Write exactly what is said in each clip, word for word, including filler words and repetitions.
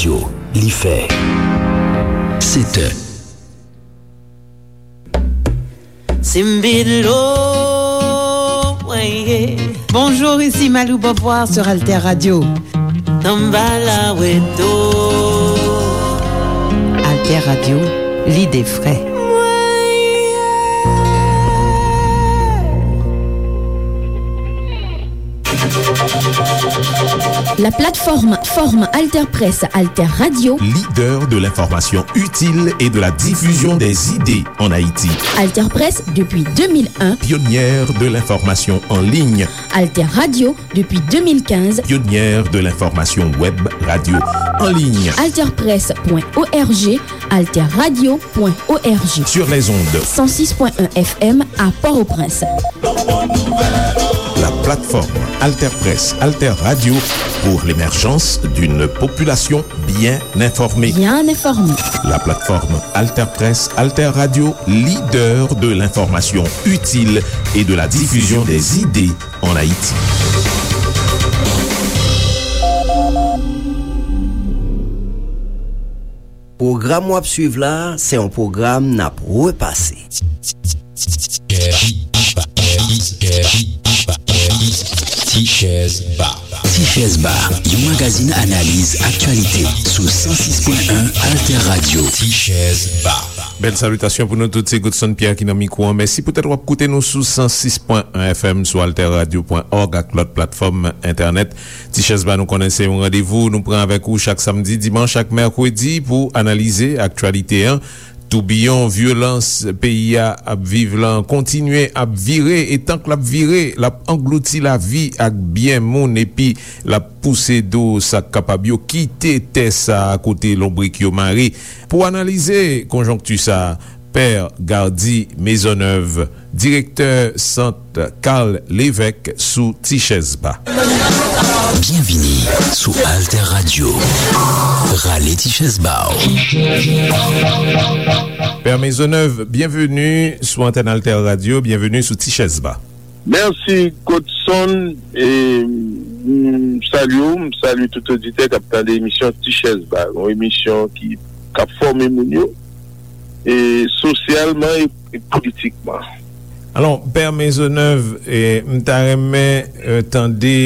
Yo, li fè sèt è. Simbilo, weye. Bonjour, ici Malou Beauvoir sur Alter Radio. Tambala weto. Alter Radio, l'idée vraie. La plateforme, forme Alterpresse Alter Radio. Leader de l'information utile et de la diffusion des idées en Haïti. Alterpresse depuis deux mille un. Pionnière de l'information en ligne. Alter Radio depuis deux mille quinze. Pionnière de l'information web radio en ligne. Alterpresse point org, alterradio point org. Sur les ondes. Cent six point un F M à Port-au-Prince. La plateforme Alterpresse Alter Radio pour l'émergence d'une population bien informée. Bien informée. La plateforme Alterpresse Alter Radio, leader de l'information utile et de la diffusion des idées en Haïti. Pwogram w ap swiv la, se yon pwogram n ap repase. Tichèz Ba. Tichèz Ba, yon magazin analiz aktyalite sou san sis pwen en Alter Radio. Tichèz Ba. Bèl salitasyon pou nou tout, se Godson Pierre ki nan mikwo an. Mèsi poutèt w ap koute nou sou san sis pwen en F M, sou alterradio pwen òg ak lòt platfòm entènèt. Tichèz Ba, nou konnen se yon randevou nou pran avèk ou chak samdi, dimanch ak mèkredi pou analize aktyalite an. Toubiyon vyolans peyi a ap viv lan kontinye ap vire, e tank l ap vire, l ap anglouti lavi ak byen moun, epi l ap pouse do sa k kapab yo kite tè sa a kote lonbrik yo mare. Pou analize konjonkti sa a, Pè Gardy Maisonneuve, direktè Sant Carl Lévesque sou Tichèz Ba. Byenvini sou Alter Radio. Rale tichèz ba w. Pè Maisonneuve, byenveni sou antèn Alter Radio, byenveni sou Tichèz Ba. Mèsi, Godson. E, m salye w, m salye tout oditè k ap tande emisyon Tichèz Ba, yon emisyon ki, k ap fòme moun yo, e, sosyalman e, e politikman. Alò, Pè Maisonneuve, e, m ta renmen, e, tande,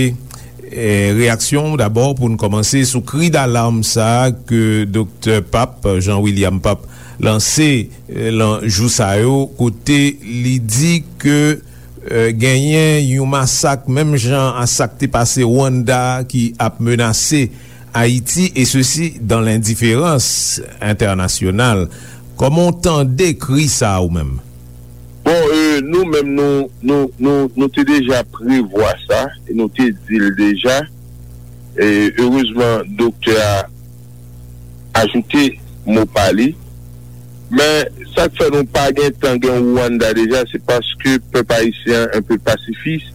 e, reyaksyon w dabò pou n kòmanse sou kri dalam sa a ke Doktè Pap, Jean William Pap, lanse, e, lan jou sa yo, kote li di ke, e, genyen yon masak menm jan a sa k te pase Rwanda ki ap menase Ayiti, e sesi dan lendiférans entènasyonal. Kòman w tande kri sa a ou menm? Bon, e, nou menm, nou, nou, nou, nou te deja prevwa sa, e nou te di l deja. E, erezman, doktè a ajoute mo pa li. Men, sa k fè nou pa gen tan gen Rwanda deja, se paske pèp ayisyen an enpe pasifis,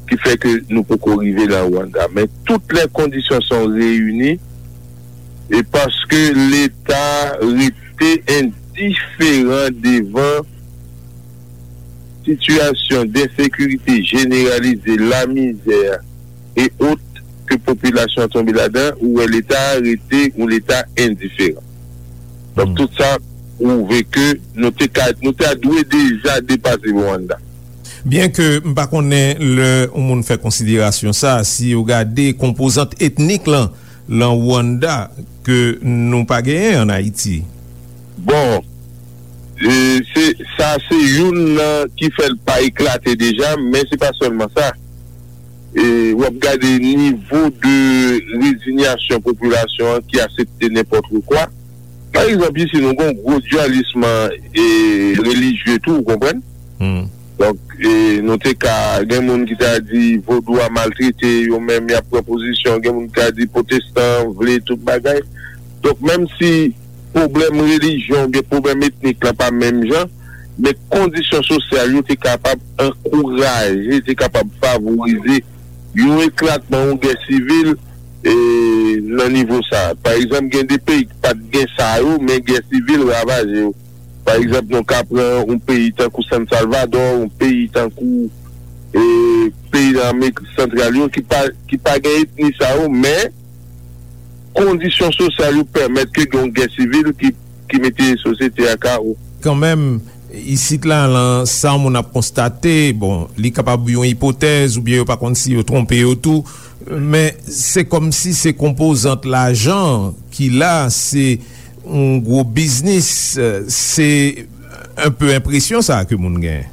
ki fè ke nou poko rive nan Rwanda. Men, toutes les conditions sont réunies, e paske Leta rete endiferan devan sitiyasyon densekirite jeneralize, lamizè e ot ke popilasyon an tonbe ladan, ou wè Leta a rete yon Leta endiferan. Donk, hmm, tout sa pwouve ke nou te ka, nou ta dwe deja depase Rwanda. Byen ke m pa konnen lè yon moun fè konsiderasyon sa, si yo gade konpozant etnik lan, lan Rwanda ke nou pa genyen ann Ayiti? Bon, e, se, sa se youn nan ki fè l pa eklate deja, men se pa sèlman sa. E, w ap gade nivo de rezinyasyon popilasyon an ki aksepte nenpòt kwa. Pa egzanp, isi, nou gen yon gwo dyalis, e, relijye tou, ou konprann? Hmm. Donk, e, nou te ka, gen moun ki ta di vodou a maltrete yo menm, y ap pran pozisyon, gen moun ki ta di pwotestan vle tout bagay. Donk, menm si pwoblèm relijyon oubyen pwoblèm etnik lan pa menm jan, men kondisyon sosyal yo te kapab ankouraje, te kapab favorize yon eklatman, yon gè sivil, e, nan nivo sa. Pa egzanp, gen de peyi ki pa t gen sa yo, men gè sivil ravaje yo. Pa egzanp, nou ka pran yon peyi tankou San Salvador, yon peyi tankou, e, peyi nan Amerik Santral yo, ki pa, ki pa gen etni sa yo, men kondisyon sosyal yo pèmèt ke gen yon gè sivil ki, ki mete sosyete a kawo. Kanmenm, isit la, lan sa moun ap konstate, bon, li kapab yon ipotèz oubyen yo pa konn si yo twonpe yo tou, men se kòmsi se konpozant lajan ki la, se yon gwo biznis, se enpe enpresyon sa ke moun gen.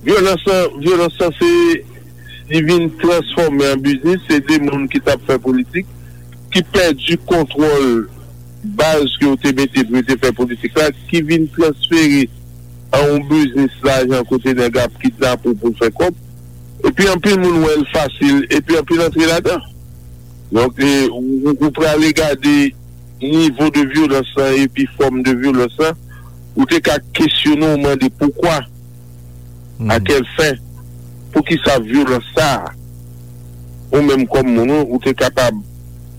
Vyolans lan, vyolans lan se, li vin transfòme an biznis, se de moun ki t ap fè politik, ki pèdi kontwòl baz ke yo te mete pou yo te fè politik la, ki vin transfere an yon biznis lajan kote nèg ap kidnape w pou l fè kòb. Epi anpil moun wè l fasil, epi anpil antre ladan. Donk, e, ou, ou, ou prale gade nivo de vyolans lan epi fòm de vyolans lan, ou te ka kesyone w, mande poukwa, à quelle fin, poukisa vyolans sa a? Ou menm kòm moun, ou, ou te kapab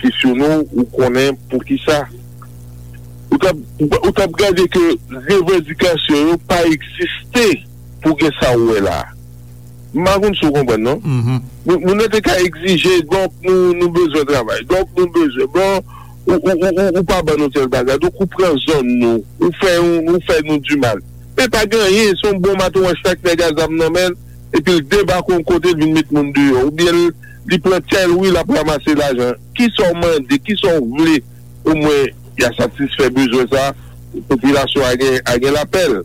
kesyone w, ou konnen poukisa. Ou t ap, ou t ap gade ke revandikasyon yo pa egziste pou gen sa ou wè la a. M pa konn si w konprann, non? Moun, moun nan te ka egzije, donk nou, nou bezwen travay, donk nou bezwen, bon, ou, ou, ou, ou, ou pa ban nou tèl bagay, donk ou pran zòn nou, ou fè, ou, ou fè nou dimal. Men pa gen anyen, se yon bon maton wòch fèk nèg a zam nan men l, epi l debake yon kote, l vin met moun deyò, oubyen l, li pran tèl wi, l ap ranmase lajan. Kisa w mande, kisa w vle? Omwen, y a satisfè bezwen sa, popilasyon a gen, a gen lapèl.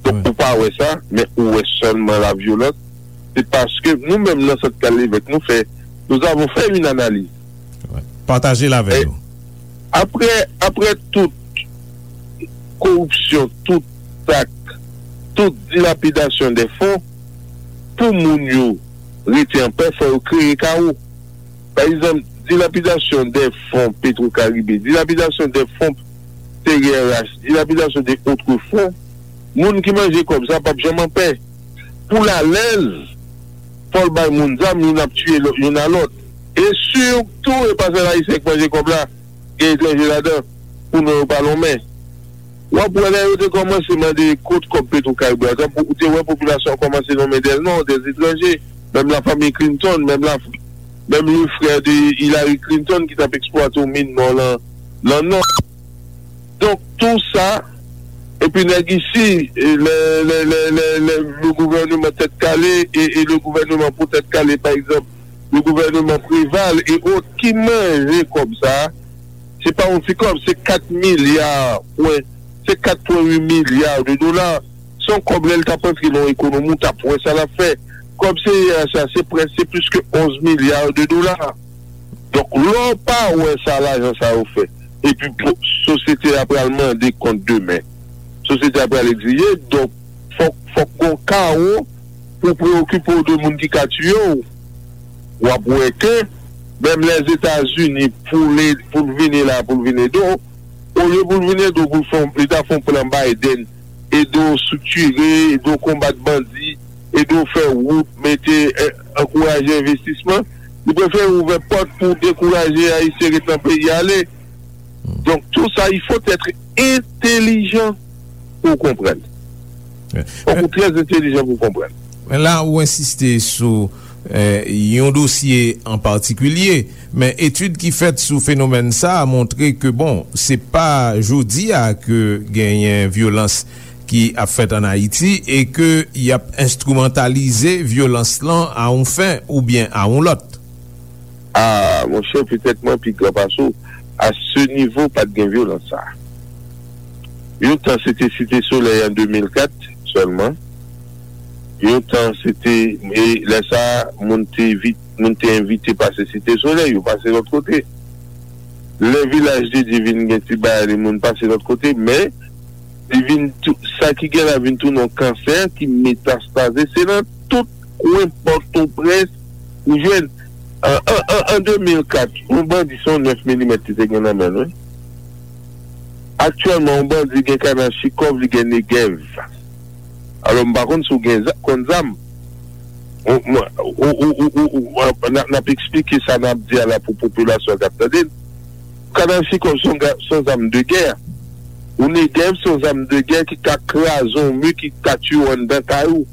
Donk, ou pa wè sa, men ou wè sèlman lavyolans. Se paske nou menm nan Sant Kalevèk, nou fè, nous avons fait une analyse. Pataje l avè nou. Apre, apre tout koripsyon, tout zak, tout dilapidasyon de fon, pou moun yo rete anpè, fò yo kreye kawo. Pa egzanp, dilapidasyon de fon Petro Caribe, dilapidasyon de fon T R H, dilapidasyon de otre fon, moun ki manje kòb sa p ap janm anpè. Pou l alèz, fò l bay moun zam, youn ap tiye lò-, youn a lòt. E sitou, e pa sèl Ayisyen k manje kòb la, gen etranje ladan, pou non yo pa lonmen. W ap wè lè yo te kòmanse mande kot kòb Petro Caribe a, tanpou ou te wè popilasyon an kòmanse nonmen des noms, des étrangers, menm la famille Clinton, menm la, menm le frère de Hillary Clinton ki t ap eksplwate yon min nò lan, lan nò. Donk, tou sa, epi nèg isi, e, le, le, le, le, le, le gouvènman tèt kale e, e le gouvènman pou tèt kale, pa egzanp, le gouvènman Preval e ot ki manje kòb sa a, se pa yon ti kòb, se kat milya pwen, se kat pwen uit milya de dola. Se yon kòb lè l t ap antre nan yon ekonomi, w t ap wè sa l ap fè. Kòb C R H la, se prèske, se plis ke onz milya de dola. Donk, lè w pa wè sa lajan sa yo fè, epi po-, sosyete a pral mande kont demen, sosyete a pral egzije, donk, fòk, fòk gon kawo pou preyokipe w de moun ki ka tiye w. W ap wè ke menm Lèzetazini, pou l, pou l vini la, pou l vin ede w, olye pou l vin ede w, pou l fè, li ta fè yon plan Biden, ede w estriktire, ede w konbat bandi, ede w fè wout, mete, eh, ankouraje envestisman, li prefere ouvè pòt pou dekouraje Ayisyen ret nan peyi a ale. Donk, tou sa, il faut être intelligent pou w konprann. Fòk ou trè entelijan pou w konprann. Men la, ou ensiste sou, eh, yon dosye an patikilye, men etid ki fèt sou fenomèn sa a montre ke, bon, se pa jodi a ke genyen vyolans ki ap fèt ann Ayiti e ke y ap enstrimantalize vyolans lan a yon fen oubyen a yon lòt. A, monchè, petèt mwen pi gran pase w. A se nivo, pa t gen vyolans sa a. Yon tan, se te Site Solèy an de mil kat sèlman. Yon tan, se te, e lè sa a, moun te vi-, moun te envite pase Site Solèy, yo pase lòt kote. Lè Vilaj de Dye vin gen ti bagay li, moun pase lòt kote, men li vin tou, sa ki gen la vin tounen yon kansè ki metastaze, se nan tout kwen Pòtoprens ou jwenn. An, an, an, an de mil kat, yon bandi se yon nèf milimèt li te gen nan men l, wi. Aktyèlman, yon bandi gen Kalachnikòv, li gen Negev. Alò, m pa konn si w gen za-, konn zam. Ou, mwen, ou, ou, ou, ou, ou, n ap, n ap eksplike sa n ap di a la pou popilasyon k ap tande n. Kalachnikòv se yon ga-, se yon zam de gè. Yon Negev se yon zam de gè ki ka kraze yon mi, ki ka tiye w anndan kay ou,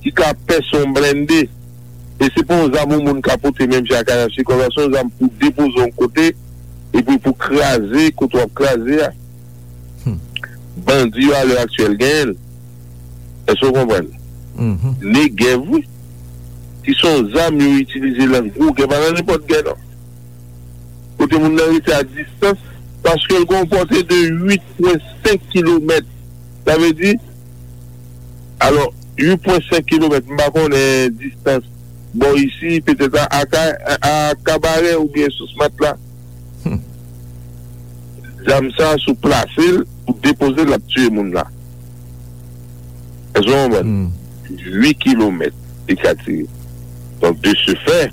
ki ka pèse yon blende. E se pa yon zam yon moun ka pote menm jan ak Kalachnikòv la, se yon zam pou depoze yon kote, epi pou kraze kote w ap kraze a. Bandi yo alè aktyèl genyen l. Èske w konprann? Negèv, wi. Ki se yon zam yo itilize nan gwo gè, pa nan nenpòt gè, non. Kote moun nan rete a distans, paske l gen yon pòte de uit pwen senk kilomèt. Sa vle di, alò, uit pwen senk kilomèt, m pa konnen distans bò isi, petèt a, a, a, a Kabarè oubyen Sous Matla. Zam sa, si w plase l, ou depoze l, l ap tiye moun la. Èske w konprann? Uit kilomèt li ka tire. Donk, de ce fait,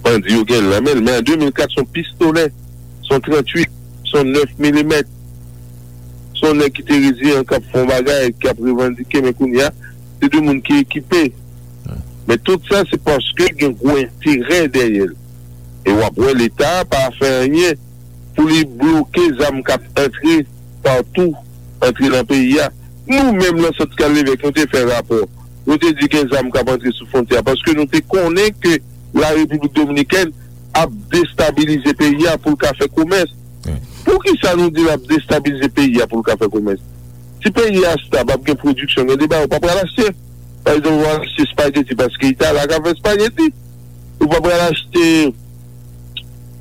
bandi yo gen l nan men l. Men an de mil kat, se yon pistolè, se yon tranntuit, se yon nèf milimèt. Se yon nèg ki te reziyen, k ap fè yon bagay, k ap revandike, men kounye a, se de moun ki ekipe. Men tout sa, se paske gen gwo enterè dèyè l. E w ap wè Leta a pa fè anyen pou li bloke zam k ap antre patou, antre nan peyi a. Nou menm nan Sant Kal Levèk, nou te fè rapò. Nou te di gen zam k ap antre sou fwontyè a, paske nou te konnen ke Larepiblik Dominikèn ap destabilize peyi a pou l ka fè komès. Poukisa nou di l ap destabilize peyi a pou l ka fè komès? Si peyi a stab, ap gen pwodiksyon, gen de bagay ou pa pral achte. Pa egzanp, ou pral achte espageti paske Itali ka fè espageti. Ou pa pral achte,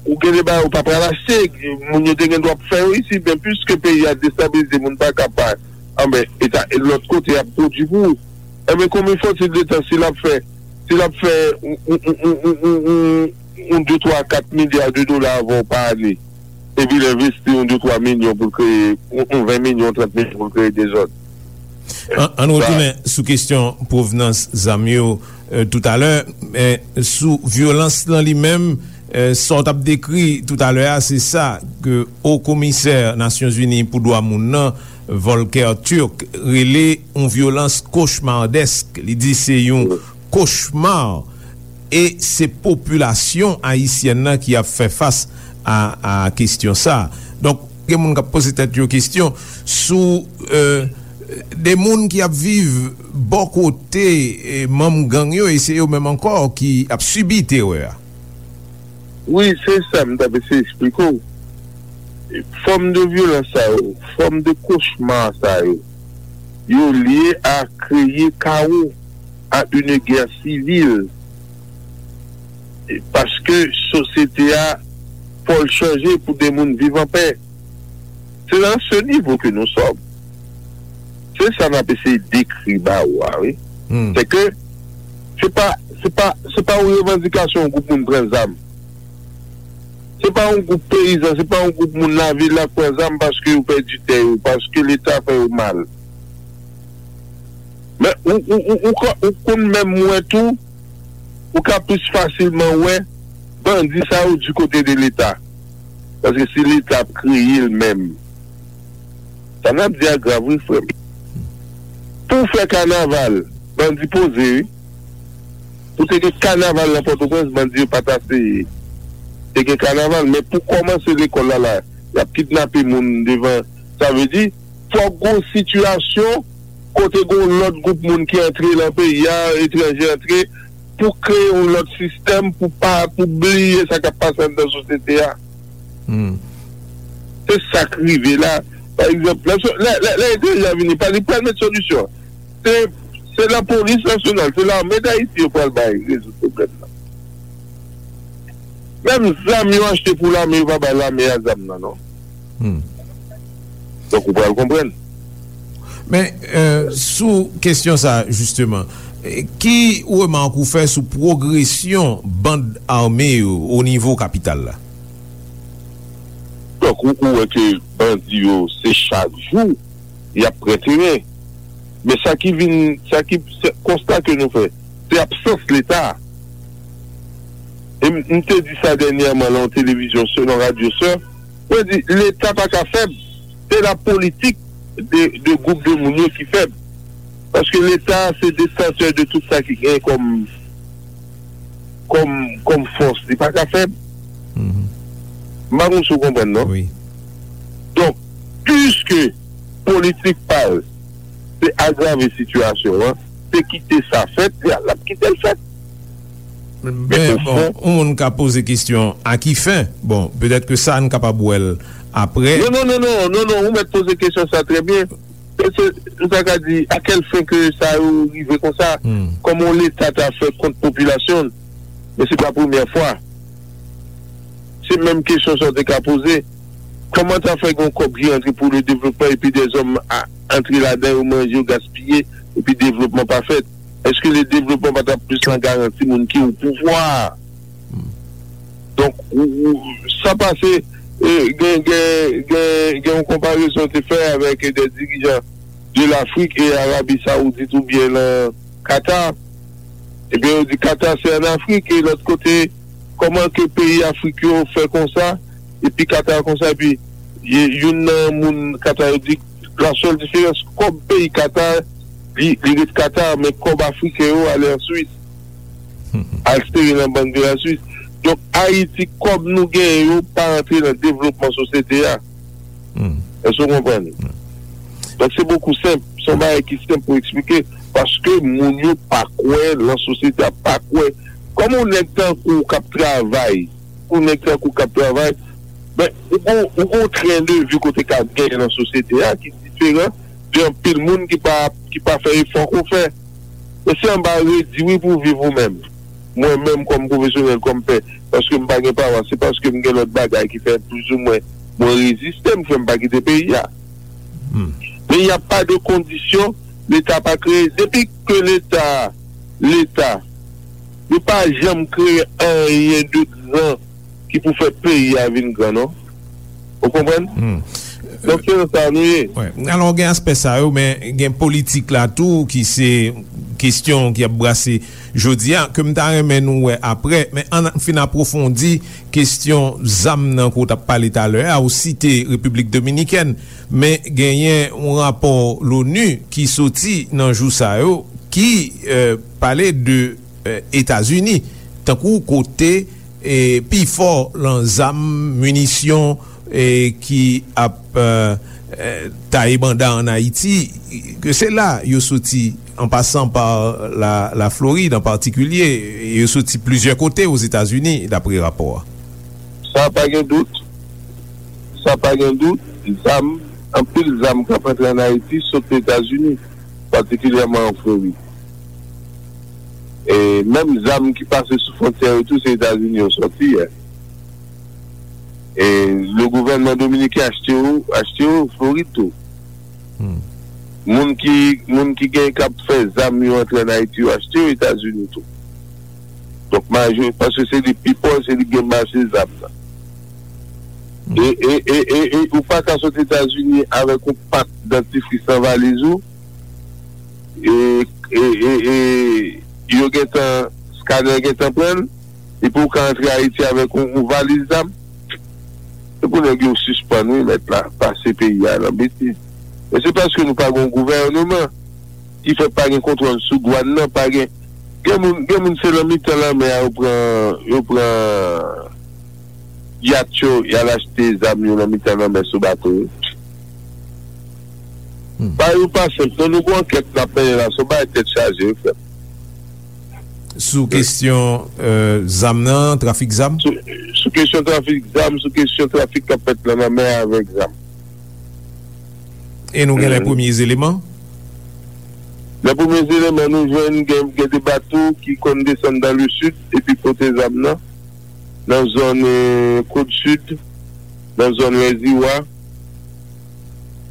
ou gen de bagay ou pa pral achte, moun yo te gen dwa ap fè yo isi, men piske peyi a destabilize, moun pa ka pa, anben, eta, lòt kote ap pwodui pou ou. Enben, konbyen fòtil de tan si l ap fè, si l ap fè yon, yon, yon, yon, yon, yon, yon de, twa, kat milya de dola avè w pa ane, epi l envesti yon de, twa milyon pou l kreye, yon, yon ven milyon, trant milyon pou l kreye dezòd. An, ann retounen sou kesyon pwovnans zam yo, euh, toutalè, men sou vyolans lan li menm, euh, sa w t ap dekri toutalè a, se sa ke Wo Komisè Nasyonzini pou Dwa Moun nan, Volker Turk, rele yon vyolans kochmardèsk. Li di se yon kochma, e se popilasyon ayisyèn nan ki ap fè fas a, a kesyon sa. Donk, gen moun k ap poze tèt yo kesyon sou, euh, de moun ki ap viv bò kote, eh, manm gang yo, e se yo menm ankò ki ap sibi terè a. Wi, se sa m t ap eseye eksplike w. Fòm de vyolans sa yo, fòm de kochma sa yo, yo lye a kreye kawo, a une guerre civile. E paske sosyete a, fò l chanje pou de moun viv anpè. Se nan se nivo ke nou sòm. Se sa n ap eseye dekri ba ou a, wi. Se ke se pa, se pa, se pa yon revandikasyon yon gwoup moun pran zam. Se pa yon gwoup peyizan, se pa yon gwoup moun lavil la k pran zam paske yo pèdi tè yo, paske Leta fè yo mal. Men ou, ou, ou, ou, ou konn menm wè tou, ou ka plis fasilman wè bandi sa yo di kote de Leta. Paske si Leta ap kreye l menm, sa n ap di a grav, wi, frè m. Pou w fè kanaval, bandi poze, wi. Pou te gen kanaval nan Pòtoprens, bandi yo pa t aseye. Te gen kanaval, men pou kòmanse lekòl la, la, y ap kidnape moun devan. Sa vle di, fòk gon sitiyasyon kote gon lòt gwoup moun ki antre nan peyi a, etranje antre, pou kreye yon lòt sistèm, pou pa, pou bliye sa k ap pase anndan sosyete a. Se sa k rive la. Pa egzanp, lè, lè, lè, lè etranje a vini, pa li pral met solisyon. Se, se lapolis nasyonal, se lame Dayiti yo pral bay rezoud pwoblèm nan. Menm zam yo achte pou lame, yo pa bay lame a zam nan, non. Donk, ou pral konprann. Men, euh, sou kesyon sa, jisteman, eh, ki remak ou fè sou pwogresyon band ame yo o nivo kapital la? Donk, ou, ou wè ke bandi yo, se chak jou, y ap pran teren. Men sa ki vin, sa ki, se konsta ke nou fè, se absans Leta. E m, m te di sa dènyèman nan yon televizyon, se nan radyo sè, mwen di, Leta pa ka fèb. Se la politik de, de gwoup de moun yo ki fèb. Paske Leta se detantè de tout sa ki gen kòm, kòm, kòm fòs. Li pa ka fèb. M pa konn si w konprann, non? Donk, piske politik pa l, se agrave sitiyasyon an, se kite sa fèt, l ap kite l fèt. Men, bon, yon moun ka poze kesyon, a ki fen? Bon, petèt ke sa, n kapab wè l apre. Non, non, non, non, non, non, ou mèt poze kesyon sa trè byen. Se, se, m ta ka di, a kèl fen ke sa yo rive konsa? Kòman yon Leta ta fè kont popilasyon l? Men se pa premyè fwa. Se menm kesyon sa w te ka poze. Kòman ta fè gen yon kòb ki rantre pou le devlopman epi dèzòm a, antre ladan, yo manje, yo gaspiye, epi devlopman pa fèt? Èske le devlopman pa t ap plis nan garanti moun ki o pouvwa a? Donk, ou, ou, sa pase, e, gen, gen, gen, gen yon konparezon te fè avèk de dirijan de l'Afrique e Arabie Saoudite oubyen nan Qatar. Ebyen, yo di Qatar se an Afrik, e lòt kote, kòman ke peyi Afrik yo fè konsa, epi Qatar konsa, epi y-, youn nan moun Qatar yo di, la sèl diferans, kòb peyi Qatar, li, li ret Qatar, men kòb afriken yo ale an Swis. Al sere nan bank de la Swis. Donk, Ayiti, kòb nou genyen yo pa antre nan devlopman sosyete a. Èske w konprann? Donk, se bokou senp. Se yon bagay ki senp pou eksplike. Paske moun yo pa kwè nan sosyete a, pa kwè. Kòman yon nèg tankou w k ap travay, pou nèg tankou w k ap travay, ben, ou gon, ou gon tren de vi kote k ap genyen nan sosyete a ki diferan de anpil moun ki pa, ki pa fè efò ke w fè. Men se anba redi wi pou w viv ou menm. Mwen menm kòm pwofesyonèl, kòm pè, paske m pa gen pawa, se paske m gen lòt bagay ki fè plizoumwen mwen reziste, m fè m pa kite peyi a. Men y a pa de kondisyon Leta pa kreye. Depi ke Leta, Leta, yo pa janm kreye anyen de gran ki pou fè peyi a vin gran, non. Ou konprann? Donk, se nan sa nou ye. Wi. Alò, gen aspè sa yo, men gen politik la tou, ki se kesyon ki ap brase jodi a, ke m ta renmen nou wè apre, men ann fin apwofondi kesyon zam nan ke w t ap pale talè a, ou site Repiblik Dominikèn, men genyen yon rapò l'ONU ki soti nan jou sa yo, ki, e, pale de, e, Etazini, tankou kote e, pifò lan zam, minisyon, e, ki ap, e, e, taye banda ann Ayiti, ke se la yo soti, an pasan pa la, la Florid an patikilye, yo soti plizyè kote Ozetazini, dapre rapò a. Sa pa gen dout. Sa pa gen dout. Zam, anpil zam k ap antre ann Ayiti sot Etazini, patikilyèman an Florid. E menm zam ki pase sou fwontyè yo tou, se Etazini yo sòti, e. E le gouvènman dominiken achte yo, achte yo Florid tou. Moun ki, moun ki gen, k ap fè zam yo antre ann Ayiti, yo achte yo Etazini tou. Donk, majori, paske se li pi pòch, se li ki gen mache zam nan. E, e, e, e, e ou pa ka sot Etazini avèk yon pak dantifris nan valiz ou, e, e, e, e yo gentan, skanè gentan pran l, epi ou ka antre Ayiti avèk yon, yon valiz zam. Se pou nèg yo sispann, wi, mèt la, pase peyi a nan betiz. Men se paske nou pa gen yon gouvèneman ki fè pa gen kontwòl sou dwàn nan, pa gen, gen moun, gen moun se nan mitan lanmè a yo pran, yo pran yat yo, y al achte zam yo nan mitan lanmè sou bato yo. Bagay yo pa senp, non, nou gon ankèt n ap mennen la, se yon bagay tèt chaje, wi, frè m. Sou kesyon, e, zam nan, trafik zam? Sou, sou kesyon trafik zam, sou kesyon trafik k ap fèt nan lanmè a avèk zam. E nou gen lè premye eleman? Lè premye eleman nou jwenn, gen, gen de bato ki konn desann dans le sud epi pote zam nan, nan zòn, e, Côte Sud, nan zòn Lèziwa,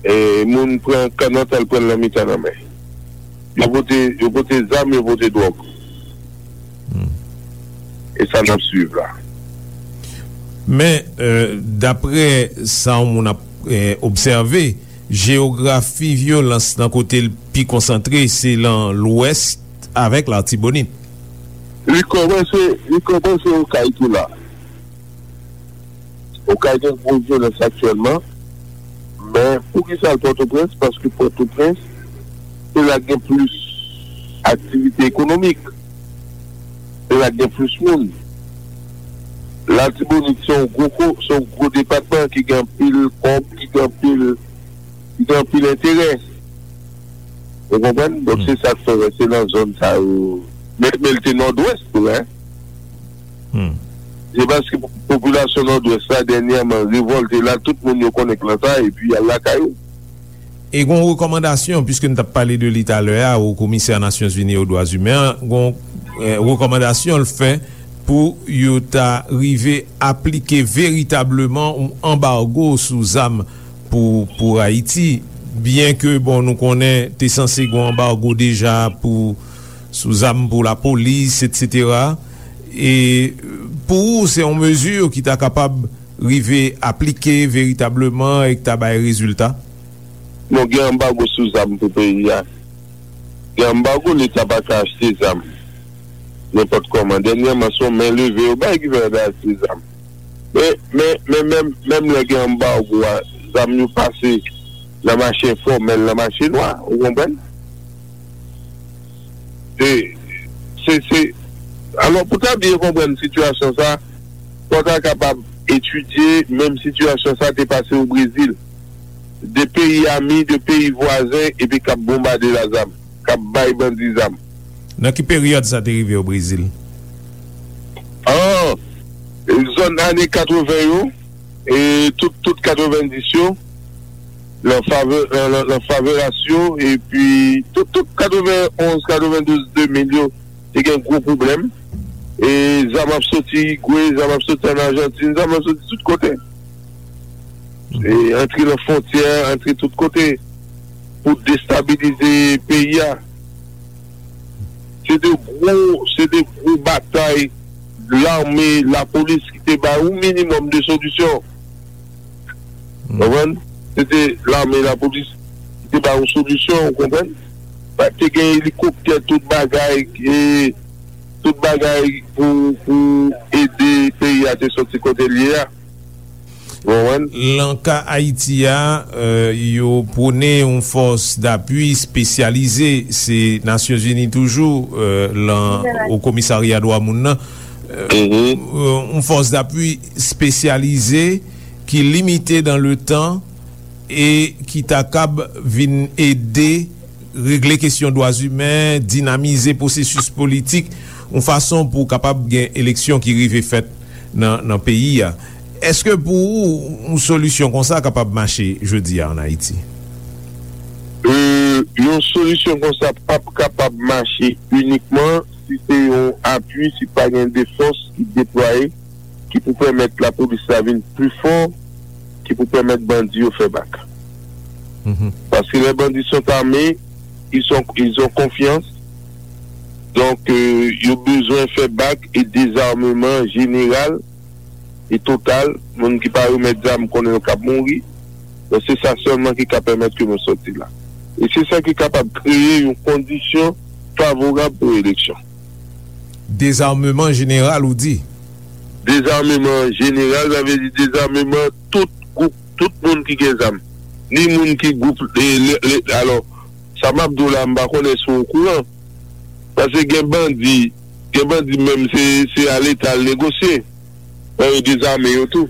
e, moun pran kannòt al pran l nan mitan lanmè. Yo pote, yo pote zam, yo pote dwòg. E sa n ap swiv la. Men, e, dapre sa yon moun ap, e, obsève, jeyografi vyolans nan kote l pi konsantre, se lan Lwès avèk Latibonit. Li kòmanse, li kòmanse Okay tou la. Okay gen gwo vyolans aktyèlman, men poukisa l Pòtoprens? Paske Pòtoprens, se la k gen plis aktivite ekonomik, se la k gen plis moun. Latibonit se yon gwo ko-, se yon gwo depatman ki gen anpil kòb, ki gen anpil, ki gen anpil enterè. Ou konprann? Donk, se sa k fè, wè, se nan zòn sa yo. Men, men l te nòdwès tou, en. Hmm. Se paske popilasyon Nòdwès la dènyèman revòlte la, tout moun yo konnen k lan sa, epi y al lakay yo. E gon rekòmandasyon, piske n t ap pale de li talè a, o komisè Nasyonzini o dwa imen an, gon eh, rekòmandasyon l fè pou yo ta rive aplike veritableman yon anbago sou zam pou, pou Ayiti. Byen ke, bon, nou konnen te sanse gon anbago deja pou, sou zam pou lapolis, etsetera. E pou ou, se yon mezi ki ta kapab rive aplike veritableman e ki ta bay rezilta? Non, gen anbago sou zam pou peyi a. Gen anbago, leta pa ka achte zam nenpòt kòman. Dènyèman, se yon men leve yo bay ki fè yo ta achte zam. Men, men, men menm, menm lè gen anbago a, zam yo pase nan mache enfòmèl, nan mache nwa, ou konprann? Se, se, se, alò, pou ta byen konprann sitiyasyon sa, fò ta kapab etidye menm sitiyasyon sa te pase o Brezil. De peyi ami, de peyi vwazen, epi k ap bonbade la zam, k ap bay bandi zam. Nan ki peryòd sa te rive o Brezil? An, zòn ane katreven yo, e tout, tout katrevenndis yo, lan favè, lan, lan, lan favelas yo, epi tout, tout katrevenonz, katrevendouz, de mil yo, te gen gwo pwoblèm. E zam ap soti Igwe, zam ap soti ann Ajantin, zam ap soti tout kote. E antre nan fwontyè, antre tout kote pou destabilize peyi a. Se de gwo, se de gwo batay lame, lapolis ki te bay yon minimòm de solisyon. Hmm. Konprann? Se te lame, lapolis ki te bay yon solisyon, ou konprann? Pa te gen elikoptè, tout bagay, e, tout bagay pou, pou ede peyi a te soti kote l ye a. Ou konprann? Lan ka Ayiti a, eh, yo pwone yon fòs dapui espesyalize, se Nasyonzini toujou, eh, lan o komisarya dwa moun nan. Eh, yon fòs dapui espesyalize ki limite dan le tan e ki ta kab vin ede regle kesyon dwa imen, dinamize pwosesis politik, yon fason pou kapab gen eleksyon ki rive fèt nan, nan peyi a. Èske pou ou, yon solisyon konsa kapab mache jodi a ann Ayiti? E, yon solisyon konsa p ap kapab mache inikman si se yon apui, si pa gen de fòs ki deplwaye, ki pou pèmèt lapolis la vin pi fò, ki pou pèmèt bandi yo fè bak. Mhm. Paske les bandits sont armés, ils sont, ils ont confiance. Donk, euh, yo bezwen fè bak e dezameman jeneral e total. Moun ki pa remèt zam konnen yo k ap mouri. Donk, se sa sèlman ki ka pèmèt ke nou sòti la. E se sa ki kapab kreye yon kondisyon favorab pou eleksyon. Dezameman jeneral, ou di? Dezameman jeneral, sa vle di dezameman tout gwoup, tout moun ki gen zam. Ni moun ki gwoup, e, le, le, alò, sa m ap di w la, m pa konnen si w okouran. Paske gen bandi, gen bandi menm se, se a Leta al negosye. Bon, yo dezame yo tou.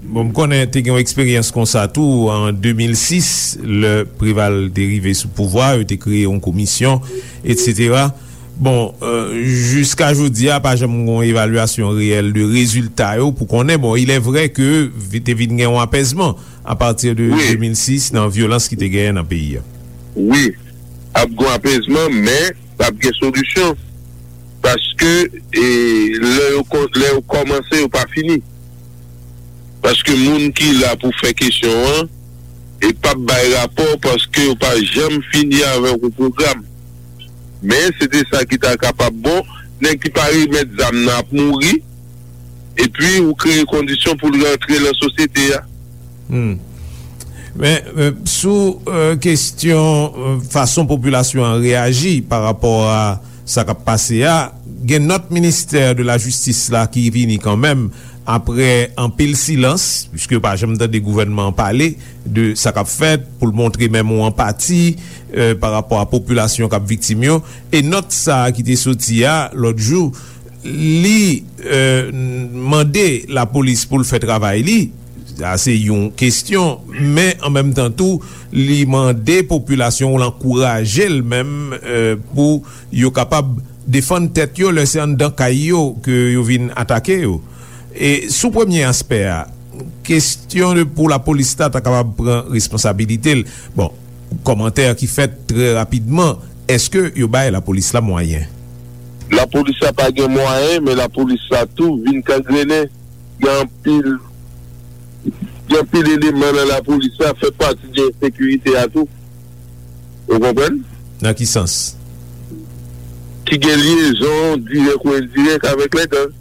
Bon, m konnen te gen yon eksperyans konsa tou an de mil sis, lè Preval te rive sou pouvwa, yo te kreye yon komisyon, etsetera. Bon, euh, jiska jodi a, pa janm gen yon evalyasyon reyèl de rezilta yo pou konnen. Bon, il est vrai que vi-, te vin gen yon apèzman a pati de, wi, de mil sis nan vyolans ki te genyen nan peyi a. Wi, ap gen yon apèzman, men p ap gen solisyon. Paske, e, lè yo kò-, lè yo kòmanse, yo pa fini. Paske moun ki la pou fè kesyon an, e p ap bay rapò paske yo pa janm fini avèk yon pwogram. Men, se te sa ki ta kapab bon, nèg ki pa remèt zam nan ap mouri, epi ou kreye kondisyon pou l rantre nan sosyete a. Hmm. Men, men, sou, euh, kesyon, euh, fason popilasyon an reyaji pa rapò a sa k ap pase a, gen nòt ministè de la jistis la ki vini kanmenm apre anpil silans, piske yo pa janm tande gouvènman an pale de sa k ap fèt, pou l montre menm yon anpati, euh, pa rapò a popilasyon k ap viktim yo. E nòt sa a ki te soti a lòt jou, li, euh, mande lapolis pou l fè travay li. Sa se yon kesyon, men an menm tan tou, li mande popilasyon, l ankouraje l menm, euh, pou yo kapab defann tèt yo lè se anndan kay yo ke yo vin atake yo. E sou premye aspè a, kesyon de pou lapolis la ta kapab pran responsabilite l. Bon, kòmantè ki fèt trè rapidman, èske yo bay lapolis la mwayen? Lapolis la pa gen mwayen, men lapolis la tou vin kangrennen. Gen anpil, gen anpil eleman nan lapolis la fè pati de ensekirite a tou. Ou konprann? Nan ki sans? Ki gen lyezon dirèk ou endirèk avèk lè gang.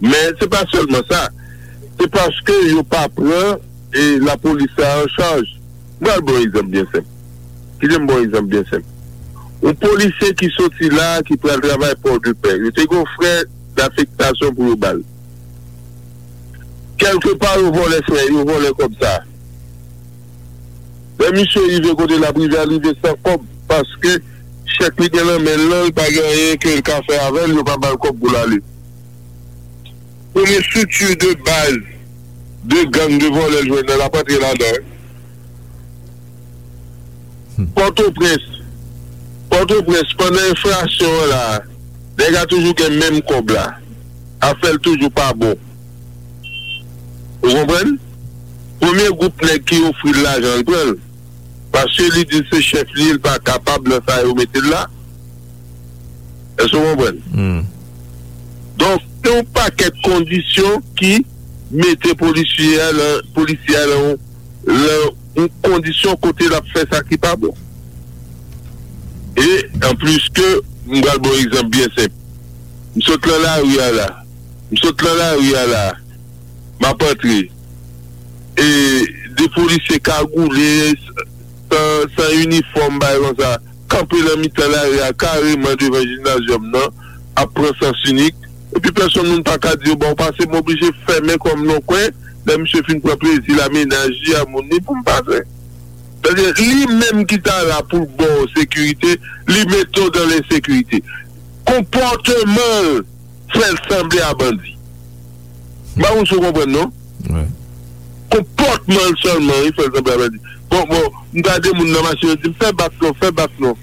Men se pa sèlman sa. Se paske yo pa pran, e, lapolis la an chaj. M pral ba w egzanp byen senp. Kite m ba w egzanp byen senp. Yon polisye ki soti la, ki pral travay Pòdepè, yo te gen yon frè dafektasyon pou yo ba l. Kèlkepa, yo vòlè frè, yo vòlè kòb sa. Lè misye rive kote l ap rive a, l rive san kòb, paske chèk li gen nan men l lan, li pa gen anyen ke l ka fè avè l, yo pa ba l kòb pou l ale. Premye estrikti de baz de gang de vòlè l jwenn nan, l ap antre ladan. Hmm. Pòtoprens. Pòtoprens, pandan enflasyon an la, nèg la toujou gen menm kòb la. Afè l toujou pa bon. Ou konprann? Premye gwoup nèg ki ofri l lajan, l pran l. Paske li di se chèf li, li pa kapab nan sa yo mete l la. Èske w konprann? Hmm. Donk, se yon pakèt kondisyon ki mete polisye a nan, polisye a nan yon, nan yon kondisyon kote l ap fè sa ki pa bon. E, anplis ke, m pral ba w egzanp byen senp. M sot nan lari a la. M sot nan lari a la. M ap antre. E de polisye kagoule, san, san inifòm, bagay konsa, kanpe nan mitan lari a, kareman devan jimnazyòm nan, ap pran sans inik. Epi pèsonn moun pa ka di yo ba w pase, m oblije fèmen kò m nan yon kwen, lè misye fin pran plezi l a menaj li, a moun li, pou m pase. Sètadi, li menm ki ta la pou l ba w sekirite, li mete w dan lensekirite. Konpòteman l fè l sanble a bandi. M pa konn si w konprann, non? Wi. Konpòtman l sèlman, wi, fè l sanble a bandi. Bon, bon, m gade moun nan machin, yo di m, "Fè bak non, fè bak non."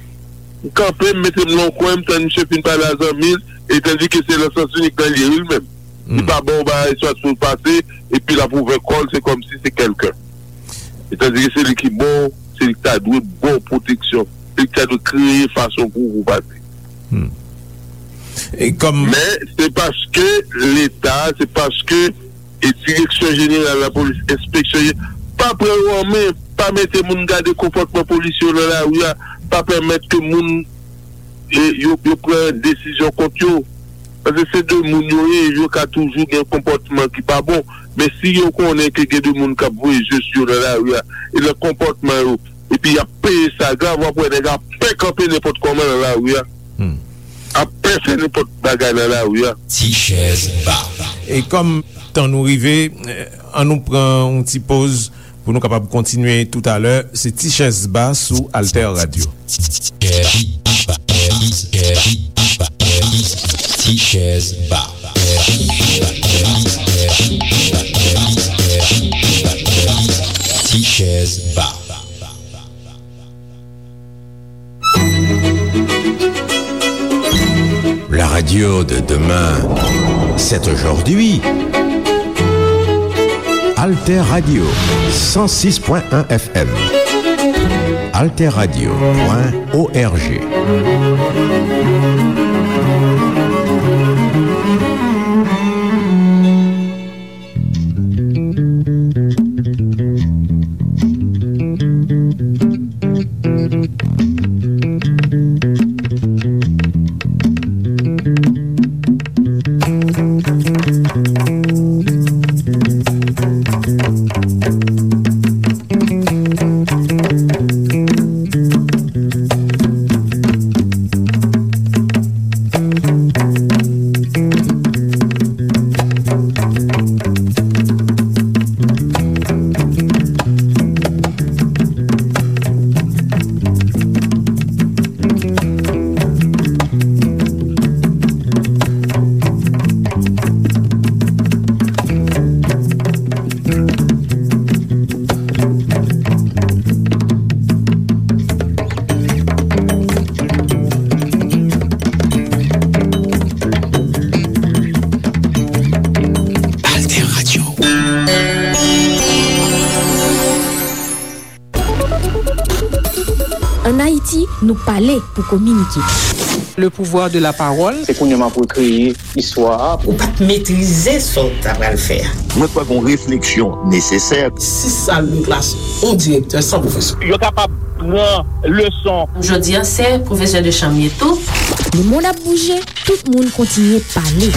M kanpe, m mete m nan yon kwen, m tann misye fin pale a zanmi l, e tandike se nan sans inik nan l ye, wi, li menm. Li pa ba w bagay, swa pou l pase, epi l ap ouvè kò l, se kòmsi se kèlken. E tandike se li ki ba w, se li ki ta dwe ba w pwoteksyon, se li ki ta dwe kreye fason pou ou pase. Hmm. E kòm Men, se paske Leta, se paske, e, Direksyon Jeneral Lapolis, Enspeksyon Je-, pa pran yo an men, pa mete moun gade konpòtman polisye yo nan lari a, pa pèmèt ke moun, e, yo, yo pran desizyon kont yo. Paske se de moun yo ye, yo ka toujou gen konpòtman ki pa bon. Men si yo konnen ke gen de moun k ap voye je sou yo nan lari a, e nan konpòtman yo, epi y ap peye sa grav, w ap wè nèg ap pè kanpe nenpòt kòman nan lari a. Hmm. Ap pè fè nenpòt bagay nan lari a. Ti chèz ba. E kòm tan nou rive, eh, an nou pran yon ti poz pou nou kapab kontinye toutalè. Se Ti chèz ba sou Alter Radio. Ti chèz ba. Ti chèz ba. La radio de demain, c'est aujourd'hui. Alter Radio, cent six point un F M. Alter Radio point O R G. Nou pale pou kominike. Le pouvoir de la parole. Se kounye a m ap rekreye istwa a. Ou pa t metrize sa w ta pral fè a. Mwen kwè gen yon refleksyon nesesè. Sis sal de klas, yon direktè san pwofesè. Yo kapab pran leson. Jodi a, se pwofesè de chanm ye tou. Lemonn ap bouje, tout moun kontinye pale.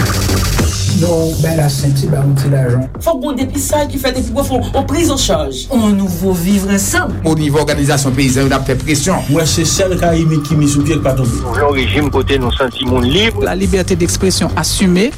Non, bay la senti, ba yon ti lajan. Fòk gon depistaj ki fèt epi pou fè yon priz an chaj. On nouvo vivre ensemble. O nivo òganizasyon peyizan yo, n ap fè presyon. Mwen se sèl Karayib ki mi sou pye k pa tonbe. Nou vle yon rejim kote nou santi moun lib. La liberté d'expression assumée.